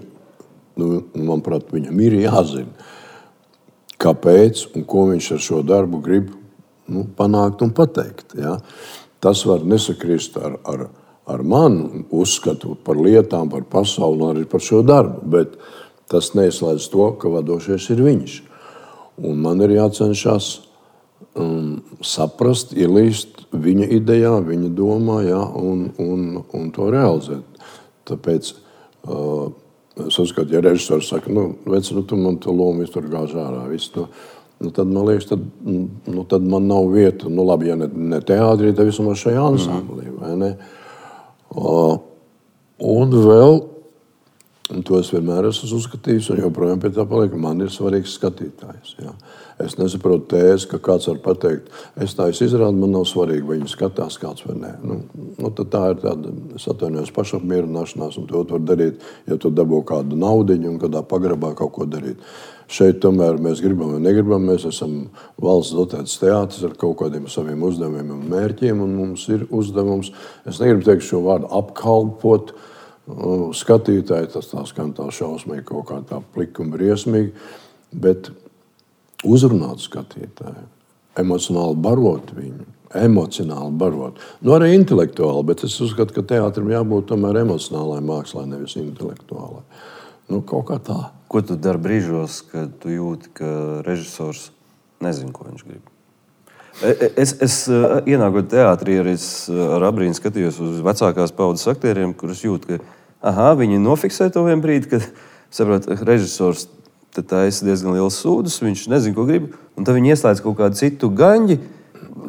manuprāt, viņam ir jāzina, kāpēc un ko viņš ar šo darbu grib panākt un pateikt. Tas var nesakrist ar manu uzskatu par lietām, par pasauli un arī par šo darbu, bet tas neizslēdz to, ka vadošais ir viņš. Un man ir jācenšas saprast, ielīst viņa idejā, viņa domā, un to realizēt. Tāpēc es uzskatu, ja režisors saka, tu man to lomu visu tur gāž ārā, visu to, tad man liekas, tad man nav vieta. Labi, ja ne teātrī, tad vismaz šajā ansamblī, vai ne? Un vēl, un to es vienmēr esmu uzskatījis, un joprojām pie tā paliek, man ir svarīgs skatītājs. Es nesaprotu tēzi, ka kāds var pateikt, es tā izrādu, man nav svarīgi, vai viņi skatās kāds vai nē. Tad tā ir tāda, es atvainojos, pašapmierināšanās, un to var darīt, ja tu dabū kādu naudiņu un kādā pagrabā kaut ko darīt. Šeit tomēr mēs gribam vai negribam, mēs esam valsts dotēts teātris ar kaut kādiem saviem uzdevumiem un mērķiem, un mums ir uzdevums, es negribu teikt šo vārdu apkalpot skatītāji, tas tā skan tā šausmīgi, kaut kā tā plika un briesmīgi, bet uzrunāt skatītāju, emocionāli barot viņu, emocionāli barot. Nu, arī intelektuāli, bet es uzskatu, ka teātrim jābūt tomēr emocionālai mākslai, nevis intelektuālai. Nu, kaut kā tā. Ko tu dari brīžos, kad tu jūti, ka režisors nezina, ko viņš grib? Es ienākot teātrī, arī ar abrīnu skatījos uz vecākās paudzes aktieriem, kurus jūtu, ka viņi nofiksē to vien brīdi, kad saprot, režisors taisa diezgan liels sūdus, viņš nezina, ko grib, un tad viņi ieslēdz kaut kādu citu gaņģi,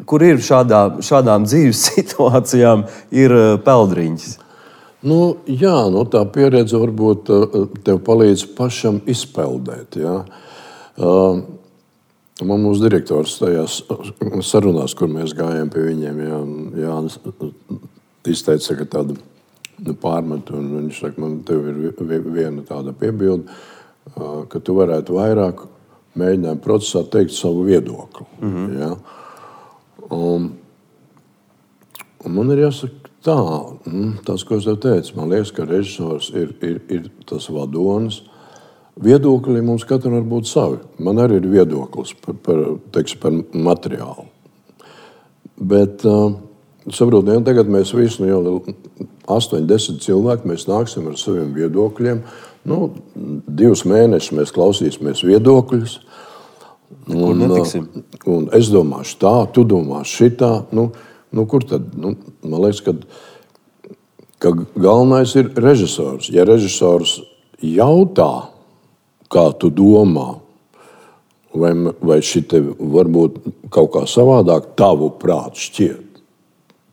kur ir šādām dzīves situācijām ir peldriņķis. Nu, jā, tā pieredze varbūt tev palīdz pašam izpeldēt. Ja? Mūsu direktors tajās sarunās, kur mēs gājām pie viņiem, Jānis izteica tādu pārmetu, un viņš saka, man tev ir viena tāda piebilde, ka tu varētu vairāk mēģināt procesā teikt savu viedokli. Ja? Un man ir jāsaka, tas, ko es tev teicu, man liekas, ka režisors ir tas vadonis. Viedokļi mums katram var būt savi. Man arī ir viedoklis par materiālu. Bet, saprotiet, tagad mēs visi, jau 8-10 cilvēki, mēs nāksim ar saviem viedokļiem. 2 mēnešus mēs klausīsimies viedokļus. Un es domāšu tā, tu domāšu šitā. Kur tad? Man liekas, ka galvenais ir režisors. Ja režisors jautā, kā tu domā, vai šite varbūt kaut kā savādāk tavu prātu šķiet,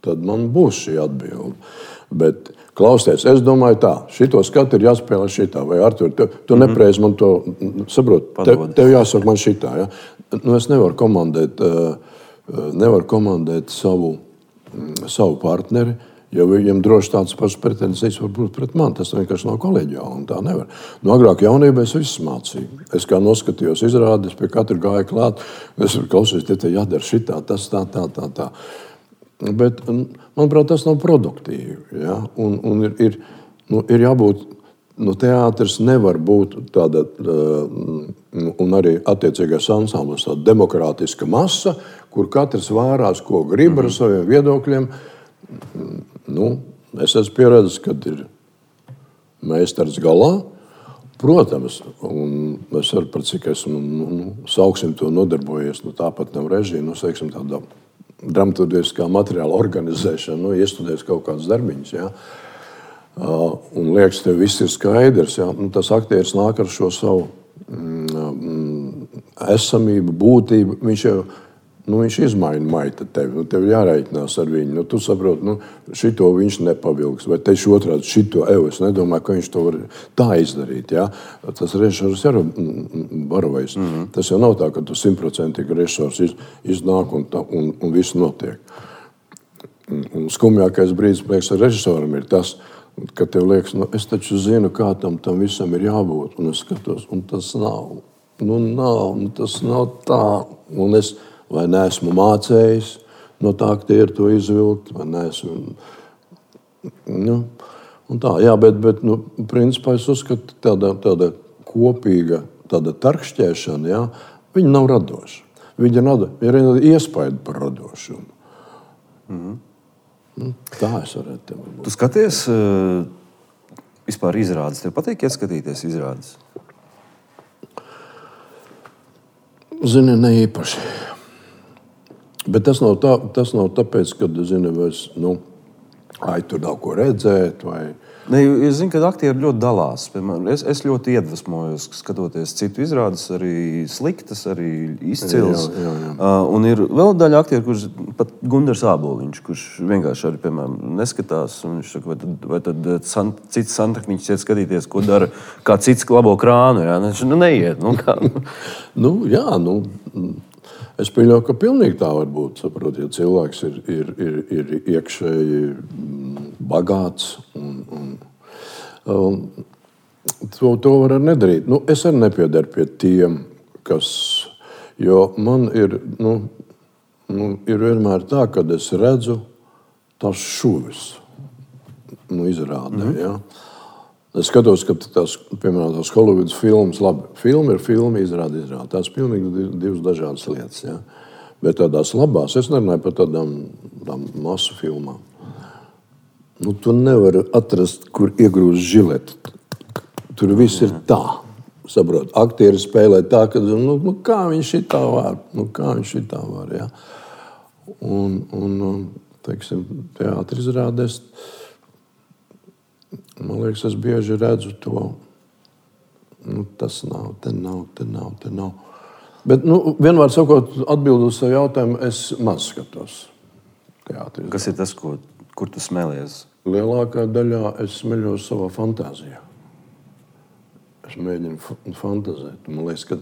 tad man būs šī atbilde. Bet klausties, es domāju tā, šito skatu ir jāspēlē šitā, vai Artur, tu nepreiz man to saprot, tev jāsaka man šitā. Ja? Es nevaru komandēt savu partneri, jo viņam droši tāds pašs pretenzijas var būt pret mani. Tas vienkārši nav kolēģiāli, un tā nevar. Agrāk jaunībā es visu mācīju. Es kā noskatījos izrādes, pie katra gāja klāt, es klausījos, te jādara šitā, tas tā. Bet, manuprāt, tas nav produktīvi. Ja? Un ir jābūt, teātris nevar būt tāda, un arī attiecīgais ansamblis, tāda demokrātiska masa, kur katrs vārās, ko grib ar saviem viedokļiem. Es esmu pieredzējis, kad ir meistars galā. Protams, un es varu par cik esmu, sauksim to nodarbojies, tāpat nav režija, teiksim tādā dramaturgiskā materiāla organizēšana, iestudēs kaut kādas darbiņas, ja? Un liekas, tev viss ir skaidrs, ja? Tas aktieris nāk ar šo savu esamību, būtību, viņš izmaina maita tevi, tev jārēķinās ar viņu. Tu saproti, šito viņš nepavilks, vai tieši otrādi šito es nedomāju, ka viņš to var tā izdarīt. Ja? Tas režisors ir varavais. Tas jau nav tā, ka tu 100% režisors iznāk un viss notiek. Un skumjākais brīdis, liekas, ar režisoram ir tas, ka tev liekas, es taču zinu, kā tam visam ir jābūt, un es skatos, un tas nav. Tas nav tā, un es vai neesmu mācējis no tā aktieru to izvilkt, vai neesmu. Un tā, jā, bet principā es uzskatu tāda kopīga, tāda tarkšķēšana, jā, viņa nav radoša. Viņa ir iespēja par radošumu. Tā es varētu tev būt. Tu skaties vispār izrādes. Tev patīk ieskatīties izrādes? Zini, ne īpaši. Bet tas nav tāpēc, ka tur nav ko redzēt. Es zinu, ka aktieri ļoti dalās. Piemēram, es ļoti iedvesmojos, skatoties citu izrādes, arī sliktas, arī izcils. Jā. Un ir vēl daļa aktieri, kurš pat Gundars Āboliņš, kurš vienkārši arī, piemēram, neskatās. Un viņš saka, vai tad cits santehniķis iet skatīties, ko dara, kā cits labo krānu. Ja? Viņš neiet. Es pieļauju, ka pilnīgi tā var būt. Saprot, ja cilvēks ir iekšēji bagāts. To var arī nedarīt. Es arī nepiedaru pie tiem, jo man ir, ir vienmēr tā, kad es redzu tās šuvis, izrādē, ja. Es skatos, ka piemēram, tās Hollywoods filmas, labi, filma ir filma, izrāda. Tās pilnīgi divas dažādas lietas, ja. Bet tādās labās, es nerunāju par tādām masu filmām. Tu nevari atrast, kur iegrūst žileti. Tur viss ir tā. Saprot, aktieri spēlē tā, ka kā viņš šitā var, ja. Un teiksim, teātri izrādēs, man liekas, es bieži redzu to. Tas nav, te nav. Bet, vienmēr sakot, atbildot savu jautājumu, es maz skatos teātri. Kas ir tas, kur tu smēlies? Lielākā daļā es smeļos savā fantāzijā. Es mēģinu fantazēt. Man liekas, ka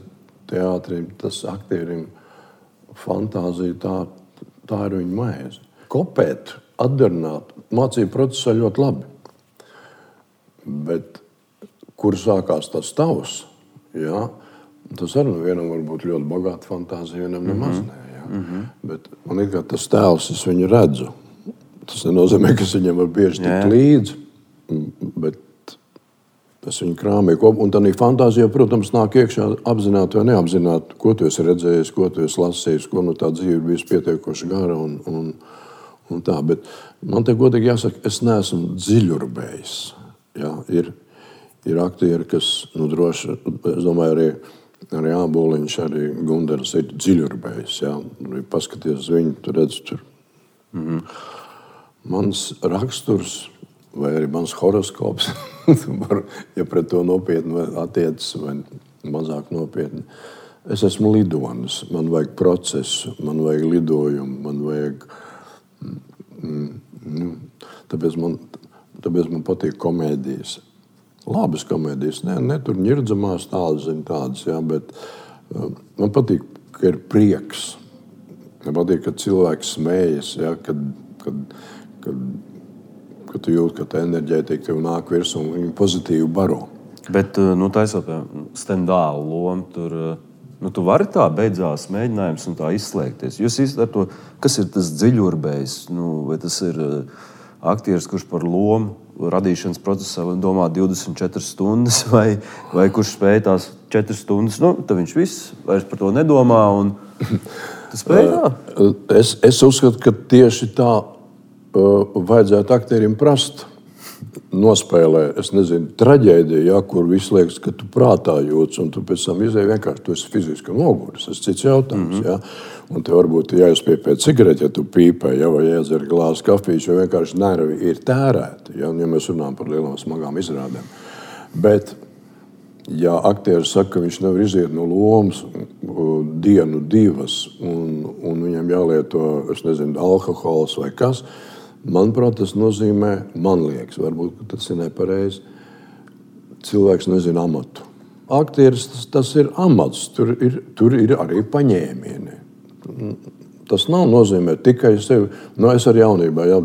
teātrim, tas aktierim fantāzija, tā ir viņa maize. Kopēt, atdarināt, mācību procesā ļoti labi. Bet kur sākās tas tavs, ja, tas arī vienam var būt ļoti bagāta fantāzija, vienam nemaz nē. Ja. Bet man ir kā tas tēls, es viņu redzu. Tas nenozīmē, ka es viņam var bieži tikt līdzi, bet es viņu krāmēju kopā. Un tādā fantāzijā, protams, nāk iekšā apzināti vai neapzināti, ko tu esi redzējis, ko tu esi lasījis, ko tā dzīve ir bijusi pietiekoši gara un tā. Bet man te godīgi jāsaka, es neesmu dziļurbējis. Ja, ir aktieri, kas, droši, es domāju, arī Āboliņš, arī Gundars ir dziļurbējis. Ja. Paskaties viņu, tu redz tur. Mans raksturs vai arī mans horoskops, ja pret to nopietni attiecas vai mazāk nopietni. Es esmu lidonis, man vajag procesu, man vajag lidojumu, man vajag... Tāpēc man patīk komēdijas. Labas komēdijas, ne tur ņirdzamās tādas, ja, bet man patīk, ka ir prieks. Man patīk, ka cilvēks smējas, ja, kad tu jūti, ka tā enerģētika tev nāk virsū un viņu pozitīvi baro. Bet, taisot stendālu lomu, tur, tu vari tā beidzās mēģinājums un tā izslēgties. Jūs ar to, kas ir tas dziļurbējs? Vai tas ir aktieris, kurš par lomu radīšanas procesā domā 24 stundas, vai kurš spēj tās 4 stundas, tad viņš viss vairs par to nedomā un tu spēj tā? Es uzskatu, ka tieši tā vajadzētu aktierim prast nospēlē, es nezinu, traģēdiju, ja, kur viss liekas, ka tu prātā jūtas, un tu pēc tam izēji vienkārši, tu esi fiziski noguris, tas cits jautājums, ja. Un te varbūt jāizpie pēc cigareti, ja tu pīpē, ja, vai jādzer glāzi kafijas, jo vienkārši nervi ir tērēti, ja mēs runājam par lielām smagām izrādēm. Bet, ja aktieris saka, ka viņš nevar iziet no lomas dienu, divas, un viņam jālieto, es nezinu, alkohols vai kas, manuprāt, tas nozīmē, man liekas, varbūt tas ir nepareizi, cilvēks nezina amatu. Aktieris, tas ir amats, tur ir arī paņēmieni. Tas nav nozīmē tikai sevi. Es ar jaunībā, ja,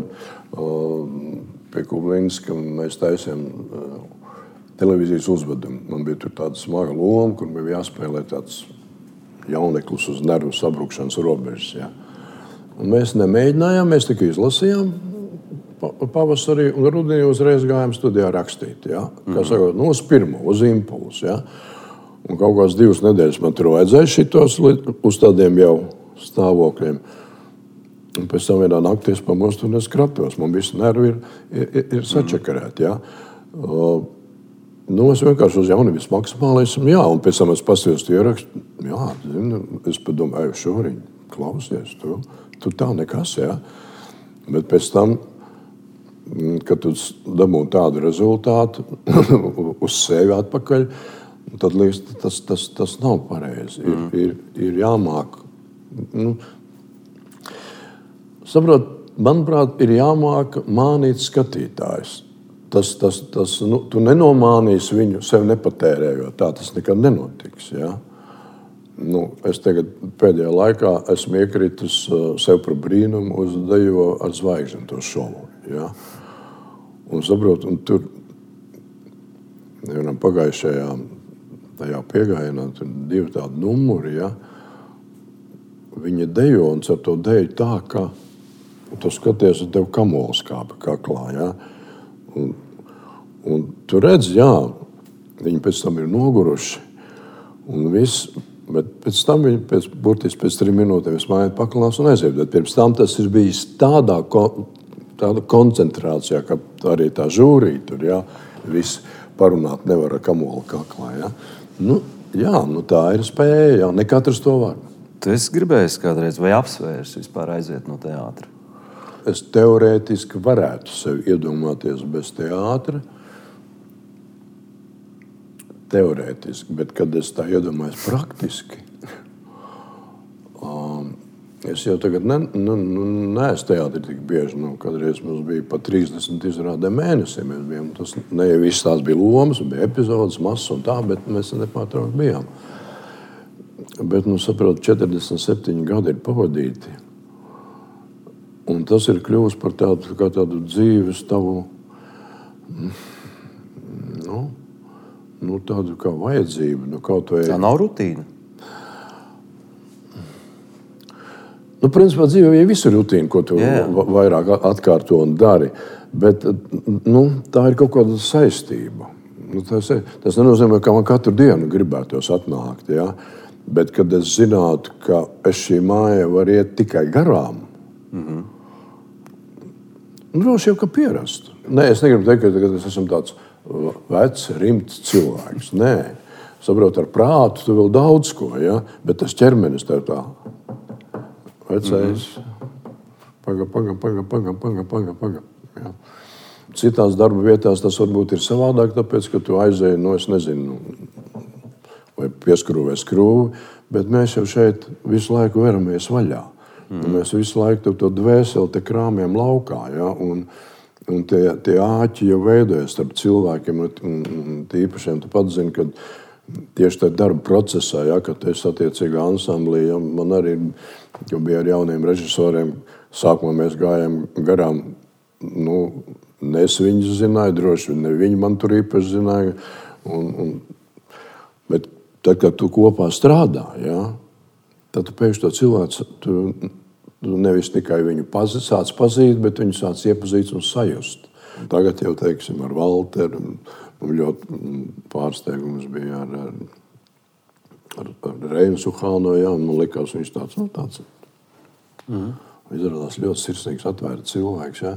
pie Kublinska mēs taisījām televīzijas uzvedumu. Man bija tur tāda smaga loma, kur bija jāspēlē tāds jauneklis uz nervu sabrukšanas robežas. Ja. Un mēs nemēģinājām, mēs tikai izlasījām pavasarī un rudenī uzreiz gājām studijā rakstīt. Ja. Kā sakot, uz pirmo, uz impulsu. Ja. Un kaut kāds 2 nedēļas man tur vajadzēja šitos uz tādiem jau stāvokļiem. Un pēc tam vienā naktī es pamostu un es kratos. Man visi nervi ir sačakarēti. Ja. Es vienkārši uz jaunības maksimālismu, jā, un pēc tam es pasījos tu ierakstu. Jā, es padomāju, Šoriņ, klausies, tu tā nekas, jā. Bet pēc tam, kad tu dabū tādu rezultātu uz sevi atpakaļ, tad liekas, tas nav pareizi. Ir jāmāk. Saprot, manuprāt, ir jāmāk mānīt skatītājs. Tu nenomānīsi viņu sev nepatērējot. Tā tas nekad nenotiks. Ja? Es tagad pēdējā laikā esmu iekritis sev par brīnumu uz Dejo ar zvaigžņu to šovu. Ja? Un saprot, un tur Pagājušajā tajā piegājienā tur 2 tādi numuri, ja? Viņi dejo un ar to deju tā, ka tu skaties, un tev kamols kāpa kaklā, ja? Un tu redz, jā, viņi pēc tam ir noguruši un viss, bet pēc tam viņi burtiski pēc 3 minūtēm smaiet paklās un aiziet. Bet pirms tam tas ir bijis tāda koncentrācijā, ka arī tā žūrī tur, ja? Viss parunāt nevar ar kamolu kaklā, ja? Tā ir spēja, jā, ne katrs to var. Tu esi gribējis kādreiz vai apsvērs vispār aiziet no teātra? Es teorētiski varētu sevi iedomāties bez teātra. Teorētiski, bet kad es tā iedomājos praktiski, es jau tagad neesmu teātri tik bieži. Kādreiz mums bija pat 30 izrādē mēnesī. Mēs bijām, tas ne jau viss tās bija lomas, bija epizodes, masas un tā, bet mēs nepārtraukti bijām. Bet, saprotu, 47 gadi ir pavadīti. Un tas ir kļuvis par tādu dzīves tavu, tādu kā vajadzību. Kaut vai... Tā nav rutīna? Principā dzīvē jau visu rutīnu, ko tu vairāk atkārto un dari. Bet tā ir kaut kāda saistība. Tas nenozīmē, ka man katru dienu gribētos atnākt, ja? Bet, kad es zinātu, ka es šī māja var iet tikai garām, droši jau, ka pierastu. Nē, es negribu teikt, ka es esmu tāds vecs, rimts cilvēks. Nē, saprotu, ar prātu tu vēl daudz ko, ja? Bet tas ķermenis tev tā vecais. Paga. Ja? Citās darba vietās tas varbūt ir savādāk, tāpēc, ka tu aizēji, es nezinu, vai pieskrūvē skrūvi, bet mēs jau šeit visu laiku veramies vaļā. Mēs visu laiku to dvēseli te krāmjam laukā, ja? Un tie āķi jau veidojas starp cilvēkiem, un tīpašiem tu pats zini, ka tieši tajā darba procesā, ja, kad es attiecīgā ansamblī, ja, man arī bija ar jauniem režisoriem, sākumā mēs gājām garām, es viņus zināju, droši ne viņi man tur īpaši zināja, bet tad, kad tu kopā strādā, ja, tad tu pēkšņi to cilvēku, tu nevis tikai viņu sāc pazīt, bet viņu sāc iepazīt un sajust. Tagad jau, teiksim, ar Valteru, ļoti pārsteigums bija ar Reinu Suhāno, ja, un man likās, viņš tāds izrādās ļoti sirsnīgs, atvērts cilvēks, ja.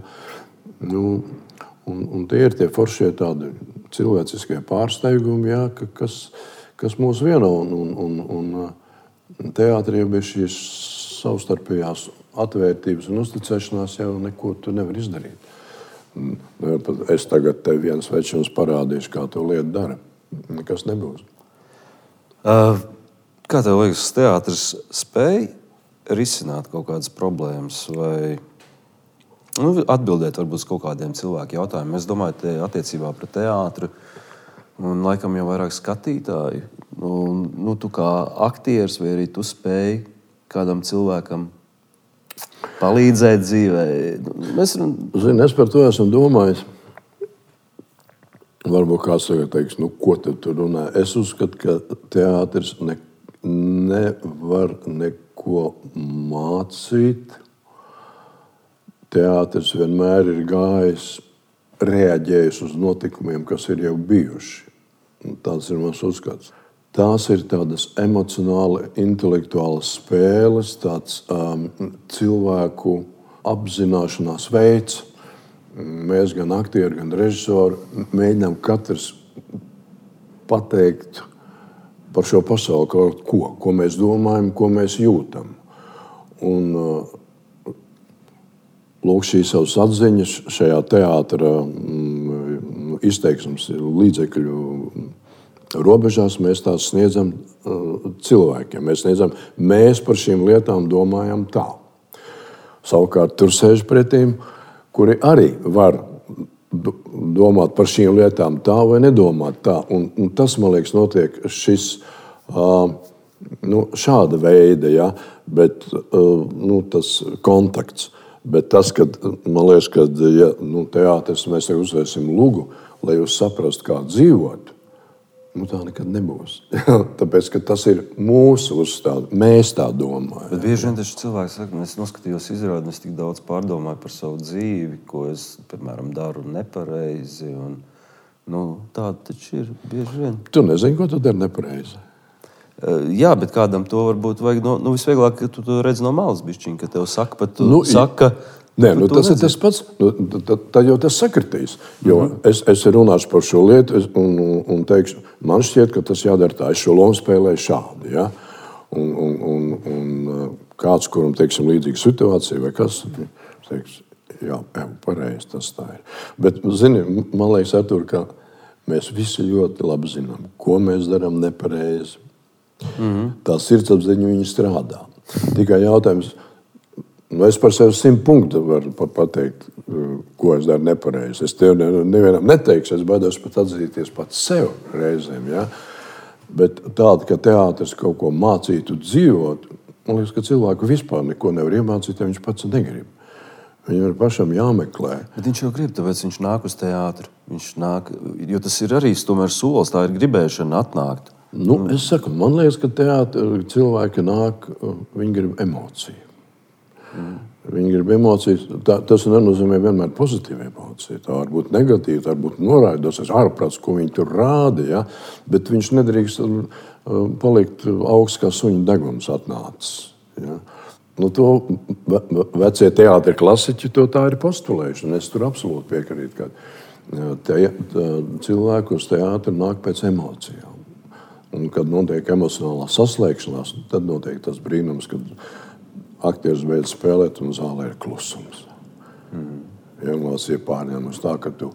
Un tie ir tie foršie tādi cilvēciskie pārsteigumi, ja, kas mūs vieno, un teātrī jau bija šīs savstarpējās atvērtības un uzticēšanās, jau neko tu nevar izdarīt. Es tagad tev viens večums parādīšu, kā to lietu dara. Nekas nebūs. Kā tev liekas, teātris spēj risināt kaut kādas problēmas vai atbildēt varbūt uz kaut kādiem cilvēku jautājumiem? Es domāju, te attiecībā pret teātru un laikam jau vairāk skatītāju. Tu kā aktieris vai arī tu spēj kādam cilvēkam palīdzēt dzīvē? Es par to esmu domājis. Varbūt kāds tagad teiks, ko tu tur runā. Es uzskatu, ka teātris nevar neko mācīt. Teātris vienmēr ir gājis, reaģējis uz notikumiem, kas ir jau bijuši. Tāds ir mans uzskats. Tās ir tādas emocionāli, intelektuālas spēles, tāds cilvēku apzināšanās veids. Mēs gan aktieri, gan režisori mēģinām katrs pateikt par šo pasauli kaut ko mēs domājam, ko mēs jūtam. Un lūk, šīs savas atziņas šajā teātra izteiksmes līdzekļu robežās mēs tās sniedzam cilvēkiem. Mēs par šīm lietām domājam tā. Savukārt tur sēž pretīm, kuri arī var domāt par šīm lietām tā vai nedomāt tā. Un tas, man liekas, notiek šis šāda veida, ja, bet tas kontakts. Bet tas, kad, man liekas, kad ja, teātris mēs uzvērsim lugu, lai jūs saprastu, kā dzīvot, Tā nekad nebūs. Tāpēc, ka tas ir mūsu uzstāde. Mēs tā domājam. Bet bieži vien taču cilvēki saka, es noskatījos izrādi, es tik daudz pārdomāju par savu dzīvi, ko es, piemēram, daru nepareizi. Tāda taču ir bieži vien. Tu nezini, ko tu dari nepareizi. Jā, bet kādam to varbūt vajag, visvieglāk, ka tu to redz no malas bišķiņ, ka tev saka, pat tu saka... Nē, tas ir tas pats. Tad jau tas sakritīs. Jo es runāšu par šo lietu un teikšu, man šķiet, ka tas jādara tā. Es šo lomu spēlēju šādi. Ja? Un kāds, kuram teiksim līdzīga situācija vai kas, teiks, jā, pareizi tas tā ir. Bet, zini, man liekas, Artur, ka mēs visi ļoti labi zinām, ko mēs darām nepareizi. Tā sirdsapziņa viņa strādā. Tikai jautājums... Es par sevi 100 punktu varu pateikt, ko es daru nepareizi. Es tev nevienam neteikšu, es baidos pat atzīties pats sev reizēm. Ja? Bet tāda, ka teātris kaut ko mācītu dzīvot, man liekas, ka cilvēku vispār neko nevar iemācīt, ja viņš pats negrib. Viņam ir pašam jāmeklē. Bet viņš jau grib, tāpēc viņš nāk uz teātri. Viņš nāk, jo tas ir arī tomēr solis, tā ir gribēšana atnākt. Es saku, man liekas, ka teātri cilvēki nāk, viņi grib emociju. Viņi grib emocijas. Tas nenozīmē vienmēr pozitīva emocija. Tā var būt negatīva, tā var būt noraidosies ārprāts, ko viņi tur rāda. Ja? Bet viņš nedrīkst palikt augsts kā suņa deguns atnācis. Ja? To vecie teātri klasiķi to tā ir postulējuši. Es tur absolūti piekrītu, ka cilvēku uz teātri nāk pēc emocijām. Un kad notiek emocionālā saslēgšanās, tad notiek tas brīnums, kad aktieris beidz spēlēt un zālē ir klusums. Emocija pārņemas tā, ka tu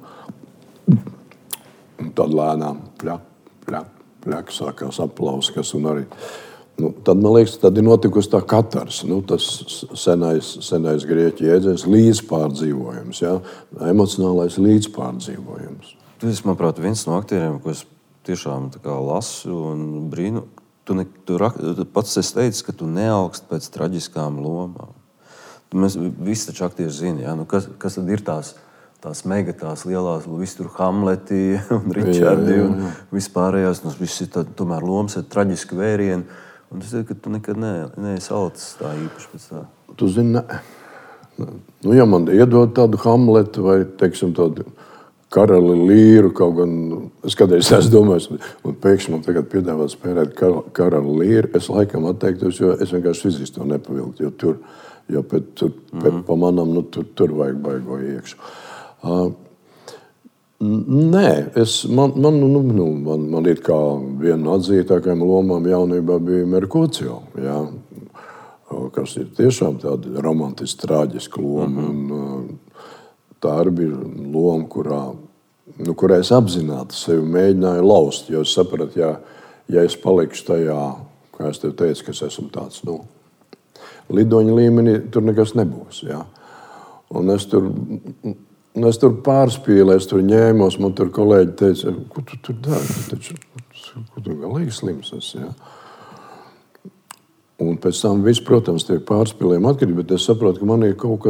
un tad lēnām pļak, sākās aplauskas un arī. Tad, man liekas, tad ir notikusi tā katars, tas senais grieķu jēdziens līdzpārdzīvojums, ja? Emocionālais līdzpārdzīvojums. Tu esi, manuprāt, viens no aktieriem, ko es tiešām tā kā lasu un brīnu. Tu pats esi teicis, ka tu neaugst pēc traģiskām lomām. Mēs visi taču aktieri zini, ja? Kas tad ir tās mega, tās lielās, visi tur Hamleti un Ričardi un vispārējās. Visi ir tomēr lomas ar traģisku vērienu. Un es teiktu, ka tu nekad neesi alicis tā īpaši pēc tā. Tu zini, ja man iedod tādu Hamletu vai, teiksim, tādu Karali Līru, kaut gan es kādreiz esmu domājis, un pēkšņi man tagad piedāvā spēlēt Karali Līru, es laikam atteiktos, jo es vienkārši fiziski to nepavilktu, jo pa manam, tur vajag baigo iekšu. Nē, man ir kā viena no atzītākajām lomām jaunībā bija Merkūcio, ja, kas ir tiešām tāda romantiski traģiska loma, un tā arī bija loma, kurā es apzināti sevi mēģināju laust, jo es sapratu, ja es palikšu tajā, kā es tev teicu, ka es esmu tāds, lidoņa līmenī, tur nekas nebūs, ja. Un es tur pārspīlēju, es tur ņēmos, man tur kolēģi teica, ko tu tur dari, ko tu galīgi slims esi, ja. Un pēc tam viss, protams, tiek pārspīlējumi atkarīgi, bet es saprotu, ka man ir kaut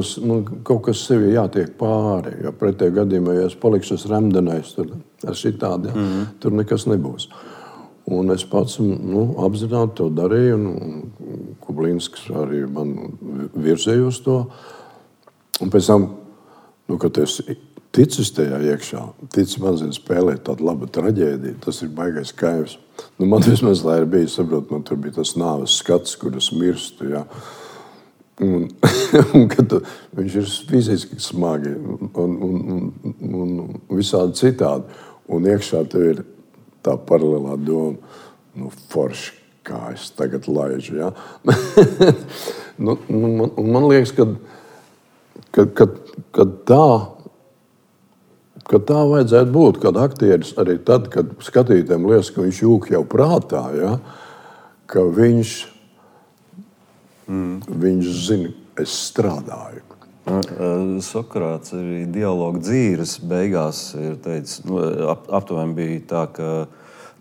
kas sevi jātiek pāri, jo pretējā gadījumā, ja es palikšu remdenais, tur šitādi, ja, tur nekas nebūs. Un es pats apzināti to darīju, un Kublīnskis arī man virzējos to. Un pēc tam, kad es ticis tajā iekšā, ticis man spēlēt tādu labu traģēdiju, tas ir baigais kaivs. Man vismaz tā ir bijis, saprot, man tur bija tas nāves skats, kur es mirstu, ja. Un kad viņš ir fiziski smagi un visādi citādi. Un iekšā tev ir tā paralēlā doma, forši, kā es tagad laižu, ja. Man liekas, ka tā vajadzētu būt, kad aktieris arī tad, kad skatītājiem liekas, ka viņš jūk jau prātā, ja, ka viņš zina, es strādāju. Sokrāts arī dialogu dzīves beigās ir teicis, aptuveni bija tā, ka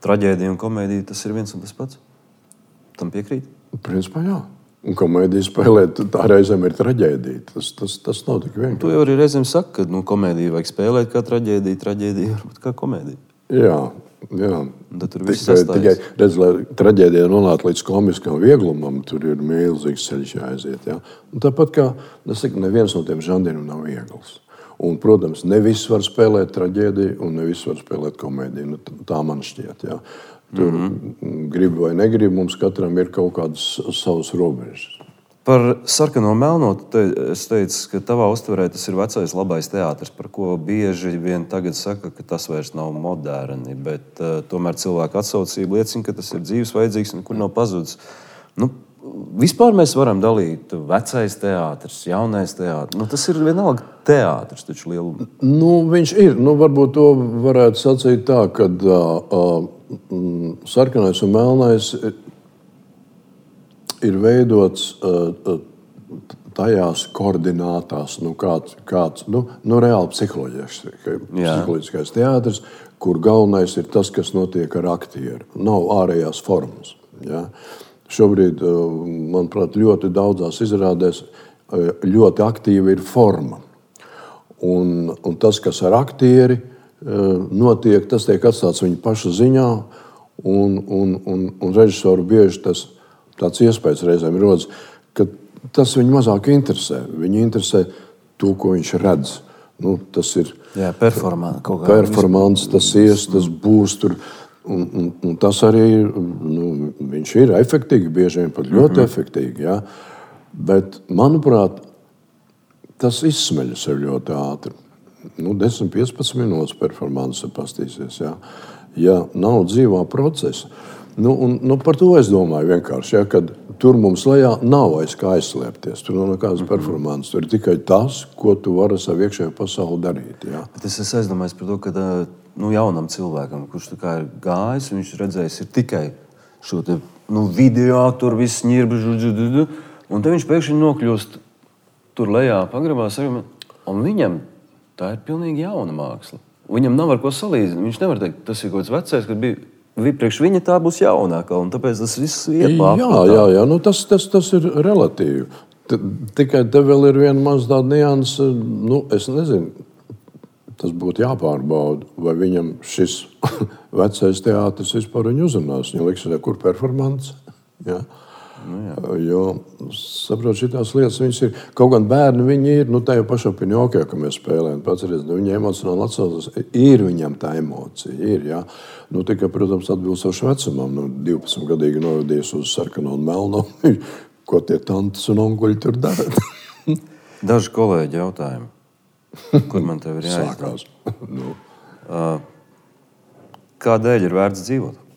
traģēdija un komēdija tas ir viens un tas pats. Tam piekrīt? Principā jā. Un komēdija spēlēt, tā reizēm ir traģēdija. Tas nav tik vienkārši. Tu jau arī reizēm saki, ka komēdiju vajag spēlēt kā traģēdija varbūt kā komēdija. Jā, Jā. Tur viss sastājas. Tikai redz, lai traģēdija nonāktu līdz komiskam vieglumam, tur ir milzīgs ceļš jāaiziet. Ja? Un tāpat kā neviens no tiem žanriem nav viegls. Un, protams, ne viss var spēlēt traģēdiju un ne viss var spēlēt komēdiju. Nu, tā man šķiet. Ja? Tur grib vai negrib, mums katram ir kaut kādas savas robežas. Par sarkano melno es teicu, ka tavā uztverē tas ir vecais labais teātris, par ko bieži vien tagad saka, ka tas vairs nav moderni, bet tomēr cilvēku atsaucība liecina, ka tas ir dzīves vajadzīgs un kur nav pazudis. Nu, vispār mēs varam dalīt vecais teātris, jaunais teātris. Nu, tas ir vienalga teātris, taču lielu. Nu, viņš ir. Nu, varbūt to varētu sacīt tā, ka sarkanais un melnais ir veidots tajās koordinātās, kāds reāli psiholoģiskais teātris, kur galvenais ir tas, kas notiek ar aktieru. Nav ārējās formas. Ja? Šobrīd, manuprāt, ļoti daudzās izrādēs ļoti aktīva ir forma. Un tas, kas ar aktieri notiek, tas tiek atstāts viņa paša ziņā, un režisoru bieži tāds iespējas reizēm rodas, ka tas viņu mazāk interesē. Viņu interesē to, ko viņš redz. Nu, tas ir performance, tas tas būs tur. Un tas arī viņš ir efektīgi, bieži vien pat ļoti efektīgi. Ja? Bet, manuprāt, tas izsmeļas sev ļoti ātri. 10-15 minūtes performance pastīsies. Ja nav dzīvā procesa. Par to es domāju vienkārši, ja, kad tur mums lejā nav aiz kā aizslēpties. Tur nav nekādas performances. Tur ir tikai tas, ko tu vari ar savu iekšējo pasauli darīt. Ja. Bet es aizdomājos par to, ka jaunam cilvēkam, kurš tā kā ir gājis, viņš redzējis ir tikai šo te, video, tur viss ņirbi, un te viņš pēkšņi nokļūst tur lejā pagrabās, un viņam tā ir pilnīgi jauna māksla. Viņam nav ar ko salīdzināt. Viņš nevar teikt, tas ir kaut kāds vecais, kad bija. Priekš viņa tā būs jaunākā, un tāpēc tas viss iet pārpratā. Jā, tas ir relatīvi. Tikai te vēl ir viena maz tāda nianse, es nezinu, tas būtu jāpārbauda, vai viņam šis vecais teātris vispār viņu uzrunās. Viņa liks, kur performance. Ja? Jo, saprot, šitās lietas viņas ir, kaut gan bērni viņi ir, tajā pašā Pinokio, ka mēs spēlējam, pats redz, viņa emocionāli atsaucas, ir viņam tā emocija, ir, jā. Tikai, protams, atbilstoši vecumam, 12-gadīgi novadījis uz sarkano un melno, ko tie tantes un onkuļi tur dara. Daži kolēģi jautājumi, kur man tev ir jāizdod? Kādēļ ir vērts dzīvot?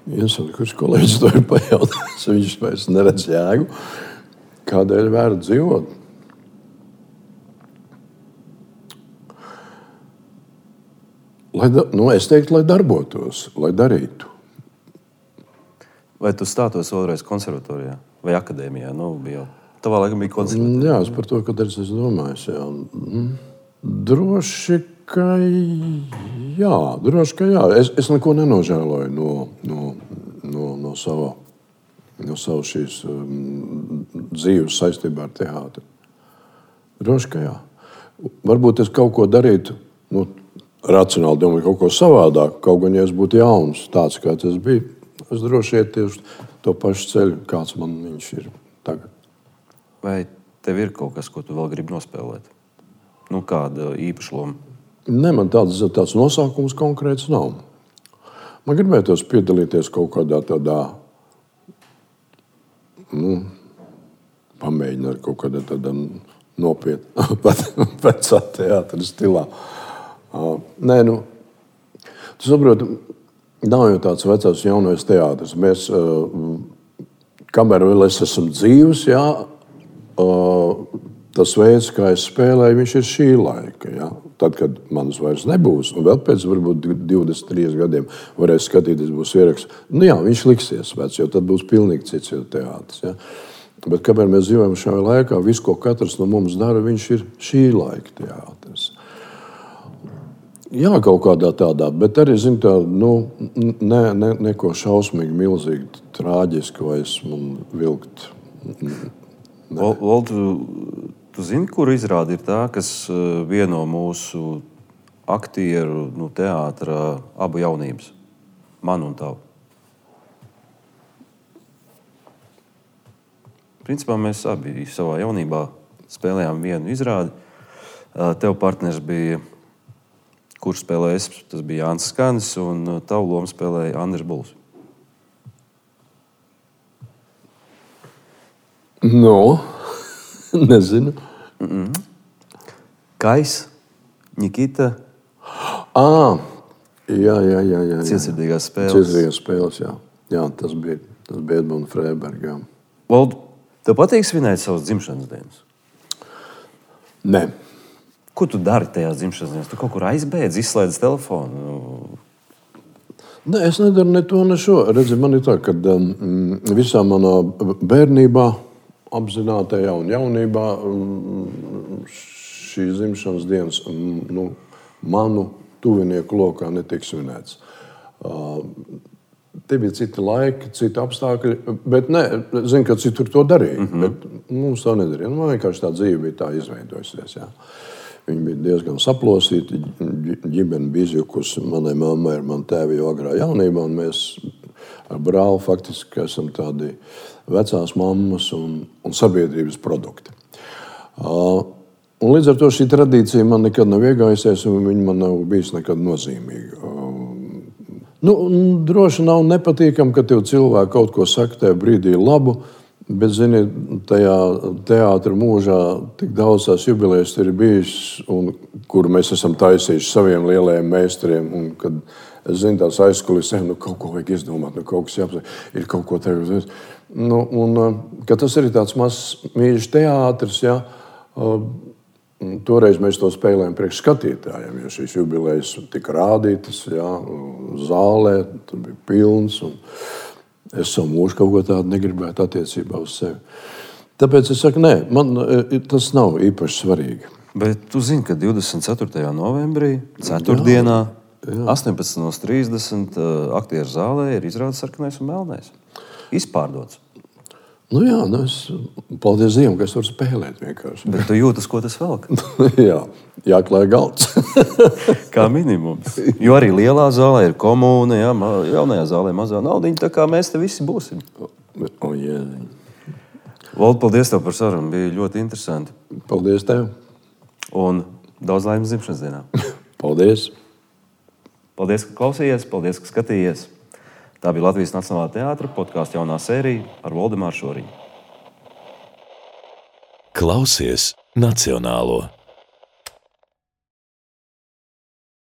Kurš kolēģis to ir pajautājis, viņš vairs neredz jēgu. Kādēļ vērts dzīvot? Es teiktu, lai darbotos, lai darītu. Vai tu stātos vēlreiz konservatorijā vai akadēmijā? Tavā laikam bija konservatorijā. Jā, es par to, kad es domāju. Droši, ka jā. Es neko nenožēloju no sava šīs dzīves saistībā ar teātri. Droši, ka jā. Varbūt es kaut ko darītu, racionāli domāju, kaut ko savādāk. Kaut gan, ja es būtu jauns, tāds, kāds es biju, es droši iet tieši to pašu ceļu, kāds man viņš ir tagad. Vai tev ir kaut kas, ko tu vēl gribi nospēlēt? Kāda īpaša loma? Ne, man tāds nosaukums konkrēts nav. Man gribētos piedalīties kaut kādā tādā, pamēģināt kaut kādā tādā nopietnā vecā teātra stilā. Nē, tu saproti, nav jau tāds vecās jaunais teātris. Mēs, kamēr vēl es esmu dzīvs, jā, tas veids, kā es spēlēju, viņš ir šī laika. Ja? Tad, kad manas vairs nebūs, un vēl pēc varbūt 23 gadiem varēs skatīties, būs ieraksts. Viņš liksies vecs, jo tad būs pilnīgi cits teātris. Ja? Bet kamēr mēs dzīvojam šajā laikā, viss, ko katrs no mums dara, viņš ir šī laika teātris. Jā, kaut kādā tādā, bet arī, neko šausmīgi, milzīgi, trāģiski vai esmu vilkt. Valdu, Tu zini, kur izrāde ir tā, kas vieno mūsu aktieru teātra abu jaunības? Manu un tavu. Principā mēs abi savā jaunībā spēlējām vienu izrādi. Tev partners bija, kurš spēlēja es, tas bija Jānis Skanis, un tavu lomu spēlēja Andris Buls. No, nezinu. Kais, Nikita. Jā. Cietsirdīgās spēles. Cietsirdīgās spēles, jā. Jā, tas bija Edmunds Freibergs. Valdu, tev patīk svinēt savas dzimšanas dienas? Nē. Ko tu dari tajās dzimšanas dienās? Tu kaut kur aizbēdz, izslēdz telefonu? Nē, es nedaru ne to, ne šo. Redzi, man ir tā, ka visā manā bērnībā, apzinātajā un jaunībā šīs dzimšanas dienas manu tuvinieku lokā netiek svinēts. Te bija citi laiki, citi apstākļi, bet zinu, ka citur to darīja. Bet mums tā nedarīja. Man vienkārši tā dzīve bija tā izveidojusies. Jā. Viņa bija diezgan saplosīta, ģimene bija izjukusi. Manai mammai ir man tēvi jau agrā jaunībā, un mēs ar brāli faktiski esam tādi vecās mammas un sabiedrības produkti. Un līdz ar to šī tradīcija man nekad nav iegājusies, un viņa man nav bijis nekad nozīmīga. Droši nav nepatīkami, ka tev cilvēki kaut ko saka tajā brīdī labu, bet, zini, tajā teātra mūžā tik daudz tās jubilejas ir bijis, un kur mēs esam taisījuši saviem lielajiem meistariem, un kad es zinu tās aizkulisē, kaut ko vajag izdomāt, kaut kas jāpasaka, ir kaut ko tagad. Ka tas ir tāds mazs mīļš teātris, jā. Toreiz mēs to spēlējām priekš skatītājiem, jo šīs jubilejas tika rādītas, jā, zālē, tur bija pilns, un es savu mūžu kaut ko tādu negribētu attiecībā uz sevi. Tāpēc es saku, nē, man tas nav īpaši svarīgi. Bet tu zini, ka 24. novembrī, ceturtdienā, 18:30 aktieru zālē ir izrādes Sarkanais un Melnais. Izpārdots. Paldies Dievam, ka es varu spēlēt vienkārši. Bet tu jūtas, ko tas velk? Jā, jāklāj galds. Kā minimums. Jo arī lielā zālē ir komūna, jā, jaunajā zālē mazā naudiņa, tā kā mēs te visi būsim. Valdu, paldies tev par sarunu, bija ļoti interesanti. Paldies tev. Un daudz laimes dzimšanas dienā. Paldies. Paldies, ka klausījies, paldies, ka skatījies. Tā bija Latvijas Nacionālā teātra podkāstu jaunā sērija ar Valdemāru Šoriņu. Klausies Nacionālo!